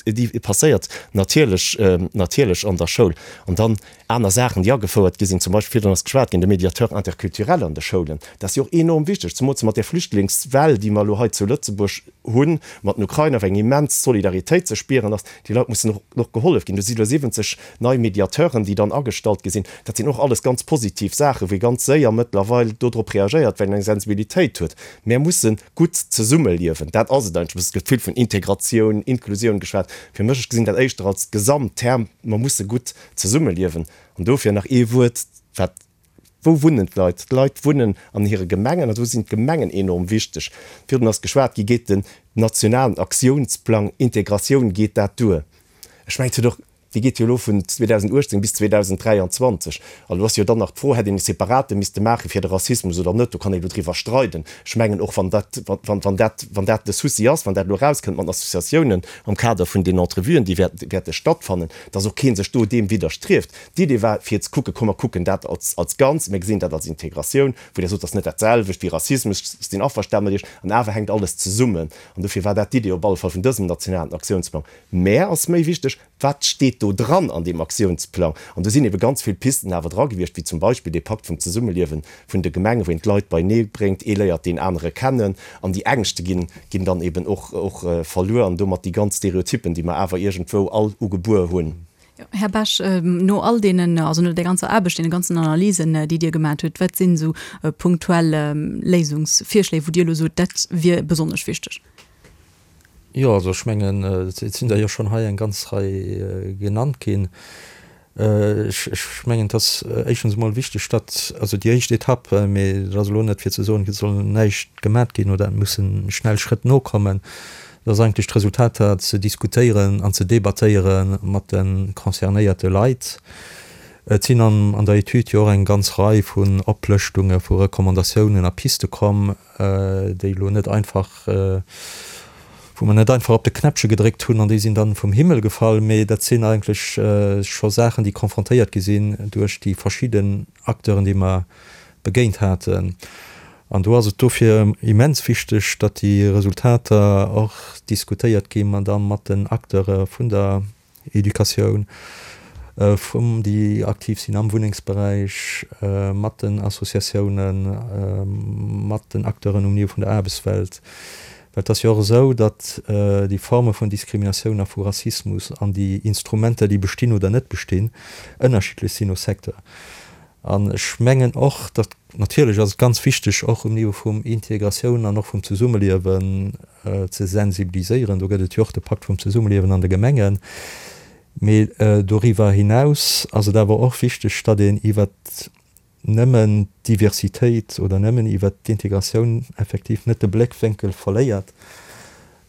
déi passéiert natierlech, natierlech an der Schoul. An dann Aner Saachen, déi agefouert gi sinn, zum Beispill, virdrun ass geschwat ginn, de Médiateur interculturel an de Schoulen, dat ass jo och enorm wichteg, zemools mat där Flüchtlingswell, déi mer elo hei zu Lëtzebuerg hunn, mat den Ukrainer, wou eng immens Solidaritéit ze spieren ass. Déi Leit mussen och och gehollef ginn. Do si elo 70 nei Mediateuren, déi dann agestallt gi sinn. Dat sinn och alles ganz positiv Saachen, wou ee ganz séier mëttlerweil dodrop reagéiert, well een eng Sensibilitéit huet. Mär musse gutt zesummeliewen, dat ass et eigentlech. Et gëtt vill vun Integratioun, Inklusioun geschwat. Fir mech, ech gesinn dat éischter als Gesamtterm, mer musse gutt Zesummeliewen. An dofir nach ee Wuert, wat, wou wunnen d'Leit? D'Leit wunnen an hire Gemengen an do sinn d'Gemengen enorm wichteg. Virdrun ass geschwat gi, geet den nationalen Aktiounsplang Integratioun, geet dat duer? Ech mengen, et huet och, dee geet jo elo vun 2018 bis 2023. An elo ass jo dann nach d'Fro, hätt een e separate misste maache fir de Rassismus oder net? Do kann ee elo driwwer streiden. Ech mengen, och wann dat, wann dat, wann dat de Souci ass, wann dat elo erauskënnt mat den Associatiounen am Kader vun den Entrevuen, déi wäerte stattfannen, dass och kee sech do deem widderstrieft. D'Idee war, fir ze kucken, komm mer kucken dat als, als Ganz, mir gesinn dat als Integratioun, wou Der sot, dat ass net dat selwecht wéi Rassismus, ech sinn averstane mat Iech, an awer hänkt alles zesummen. An dofir war dat d'Idee op alle Fall vun dësem nationalen Aktiounsplang. Mä ass méi wichteg, Wat steet do dran an deem Aktiounsplang? An do sinn ebe ganz vill Pisten awer dra gewiescht, wéi zum Beispill dee Pakt vum Zesummeliewe vun de Gemengen, wou een d'Leit beinee bréngt, ee léiert deen anere kennen an déi Ängschte ginn, ginn dann eben och, och verluer an domat déi ganz Stereotyppen, déi mer awer iergendwou all ugebuer hunn. Här Bech, no all deenen, also no där ganzer Aarbecht, deene ganzen Analysen, déi Dir gemat hutt, wat sinn esou punktuell Léisungsvirschléi, wou Dir elo sot, dat wier besonnesch wichteg? Jo, also ech mengen, et sinn der jo schonn hei eng ganz Rei genannt ginn. Ech mengen, et ass éischtens emol wichteg, datt, also déi éischt Etapp, mee dat ass elo net fir ze soen, et soll näischt gemat ginn oder et musse schnell Schrëtt nokommen. Et ass eigentlech d'Resultater ze diskutéieren an ze debattéiere mat de concernéierte Leit. Et sinn an der Etüd jo och eng ganz Rei vun Oplëschtunge vu Recommandatiounen a Piste komm, déi elo net einfach, wou mer net einfach op de Knäppche gedréckt hunn an déi sinn dann vum Himmel gefall, mee dat sinn eigentlech scho Saachen, déi confrontéiert gi sinn duerch déi verschidden Acteuren, déi mer begéint haten. An do ass et dofir immens wichteg, datt déi Resultater och diskutéiert gi da mat den Acteure vun der Educatioun, vum déi aktiv sinn am Wunnengsberäich, mat den Associatiounen, mat den Acteuren um Niveau vun der Aarbechtswelt. Well et ass jo och esou, datt déi Forme vun Diskriminatioun a vu Rassismus an déi Instrumenter, déi bestinn oder net bestinn, ënnerschiddlech sinn no Secteur. An ech mengen och, datt, natierlech ass et ganz wichteg, och um Niveau vum Integratioun an och vum Zesummeliewen ze sensibiliséieren, do gëtt et jo och de Pakt vum Zesummeliewen an de Gemengen, mee doriwwer hinaus ass et awer och wichteg, datt een iwwert nëmmen d'Diversitéit oder nëmmen iwwert d'Integratioun effektiv net de Bléckwénkel verléiert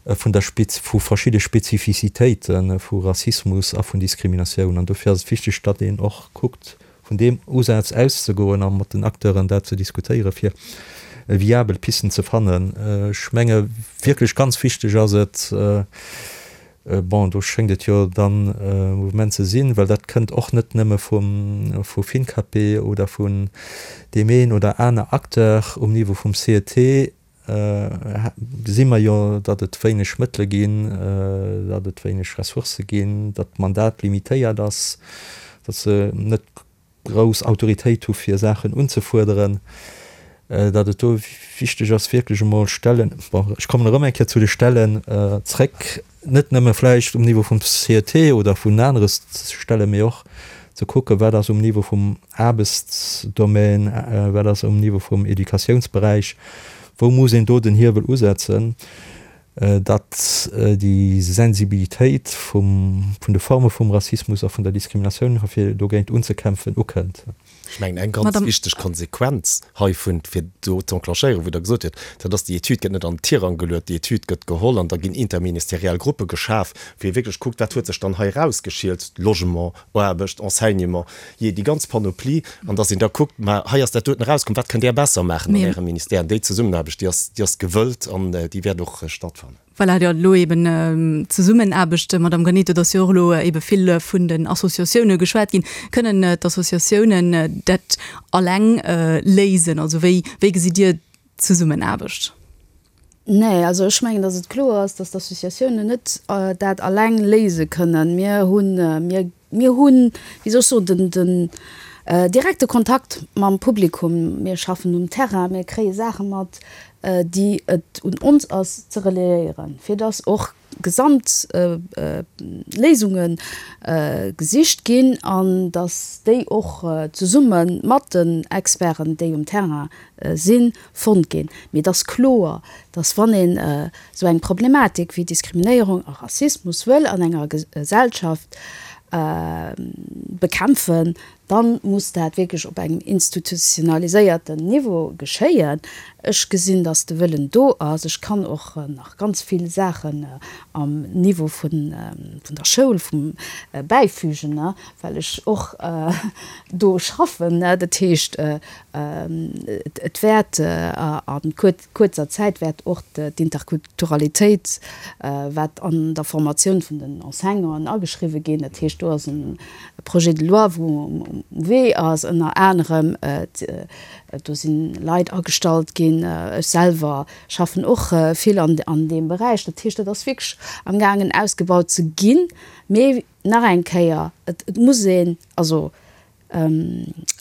vun der vu verschidde Spezifizitéite vu Rassismus a vun Diskriminatioun. An dofir ass et wichteg, datt een och kuckt, vun deem Usaz auszegoen a mat den Acteuren dat ze diskutéieren, fir viabel Pisten ze fannen. Ech menge wierklech ganz wichteg ass et, bon, do schéngt et jo dann e Mouvement ze sinn, well dat kënnt och net nëmme vum vu FINCAPE oder vun deem een oder aner Acteur um Niveau vum CET, gesi mer jo, datt et wéineg Mëttele ginn, datt et wéineg Ressourcë ginn, datt d'Mandat limitéiert ass, datt se net grouss Autoritéit hu fir Saachen unzefuerderen, datt et do wichteg ass wierklech emol Stellen, bon ech kommen erëm eng Kéier zu de Stellen zréck, net nëmme vläicht um Niveau vum CET oder vun anere Stellen, mee och ze kucken, wat ass um Niveau vum Aarbechtsdomaine, wat ass um Niveau vum Educatiounsberäich, wou muss een do den Hiewel usetzen, datt déi Sensibilitéit vum, vun de Forme vum Rassismus a vun der Diskriminatioun, fir dogéint unzekämpfen, ukënnt. Ech mengen, eng ganz wichteg Konsequenz heivun, fir do ze enclenchéieren, wou Der gesot hutt, dat ass, déi Etüd gëtt net an den Tirang geluet, déi Etüd gëtt geholl an da ginn interministeriell Gruppe geschaf, wou ee wierklech kuckt, wat huet sech dann hei erausgeschielt, Logement, Aarbecht, Enseignement, jee, déi ganz Panoplie, an dass een da kuckt, ma hei ass dat doten erauskomm, wat kënnt Där besser maachen an Ärem Ministère? An déi Zesummenaarbecht, déi ass, déi ass gewëllt an déi wäert och stattfannen. Voilà, jo, elo eben d'Zesummenaarbecht, Madame Granito, et ass jo och elo ebe vill vun den Associatioune geschwat ginn. Kënnen d'Associatiounen dat alleng léisen? Also wéi, wéi gesitt Dir d'Zesummenaarbecht? Nee, also ech mengen, datt et kloer ass, datt d'Associatiounen net dat alleng léise kënnen. Mir hunn, mir Mir hunn, wéi soll ech soen, den, den direkte Kontakt mam Publikum. Mir schaffen um Terrain, mir kréie Saache mat, déi et un ons ass ze relayéieren, fir dass och gesamt Léisunge gesicht ginn an dass déi och zesumme mat den Experten, déi um Terrain sinn, fonnt ginn. Mee et ass kloer, dass wann een esou eng Problematik wéi Diskriminéierung a Rassismus wëll an enger Gesellschaft bekämpfen, da muss dat wierklech op engem institutionaliséierten Niveau geschéien. Ech gesinn, dass de Wëllen do ass. Ech kann och nach ganz vill Saachen am Niveau vun der Schoul bäifügen, well ech och do schaffen. Dat heescht, Et wäert a kuerzer Zäit wäert och d'Interkulturalitéit, wat an der Formatioun vun den Enseignanten ageschriwwe ginn. Dat heescht, do ass e Projet de loi, wou um Wee ass, ënner anerem. Do si Leit agestallt ginn. Ech selwer schaffen och vill an deem Beräich. Dat heescht, dat ass wierklech amgaangen ausgebaut ze ginn. Mee nach eng Kéier, et muss een also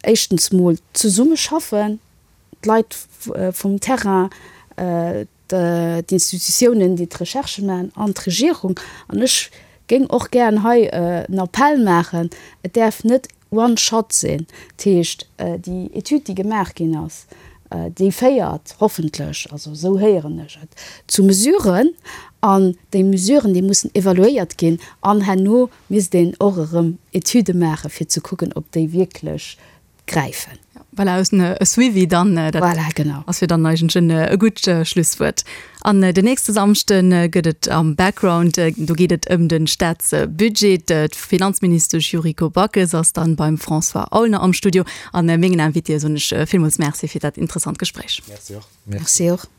éischtens mol zesummeschaffen, d'Leit vum Terrain, d'Institutiounen, déi d'Recherche maachen an d'Regierung. An ech géing och gären hei en Appell maachen, Et däerf net one shot sinn. Dat heescht, déi Etüd, déi gemaach ginn ass, déi féiert hoffentlech, also esou héieren ech et, zu Mesuren. An déi Mesuren, déi mussen evaluéiert ginn an herno Misst een och erëm Etüde maachen, fir ze kucken, ob déi wierklech gräifen. Voilà, aus e Suivi dann, dat voilà, genau. ass jo dann eigentlech e gutt Schlusswuert. An den nächste Samschde gëtt et am Background, do geet et ëm de Staatsbudget. D'Finanzministesch Yuriko Backes ass dann beim François Aulner am Studio. An mengen Invitéë soen ech villmools Merci fir dat interessant Gespréich. Merci och. Merci och.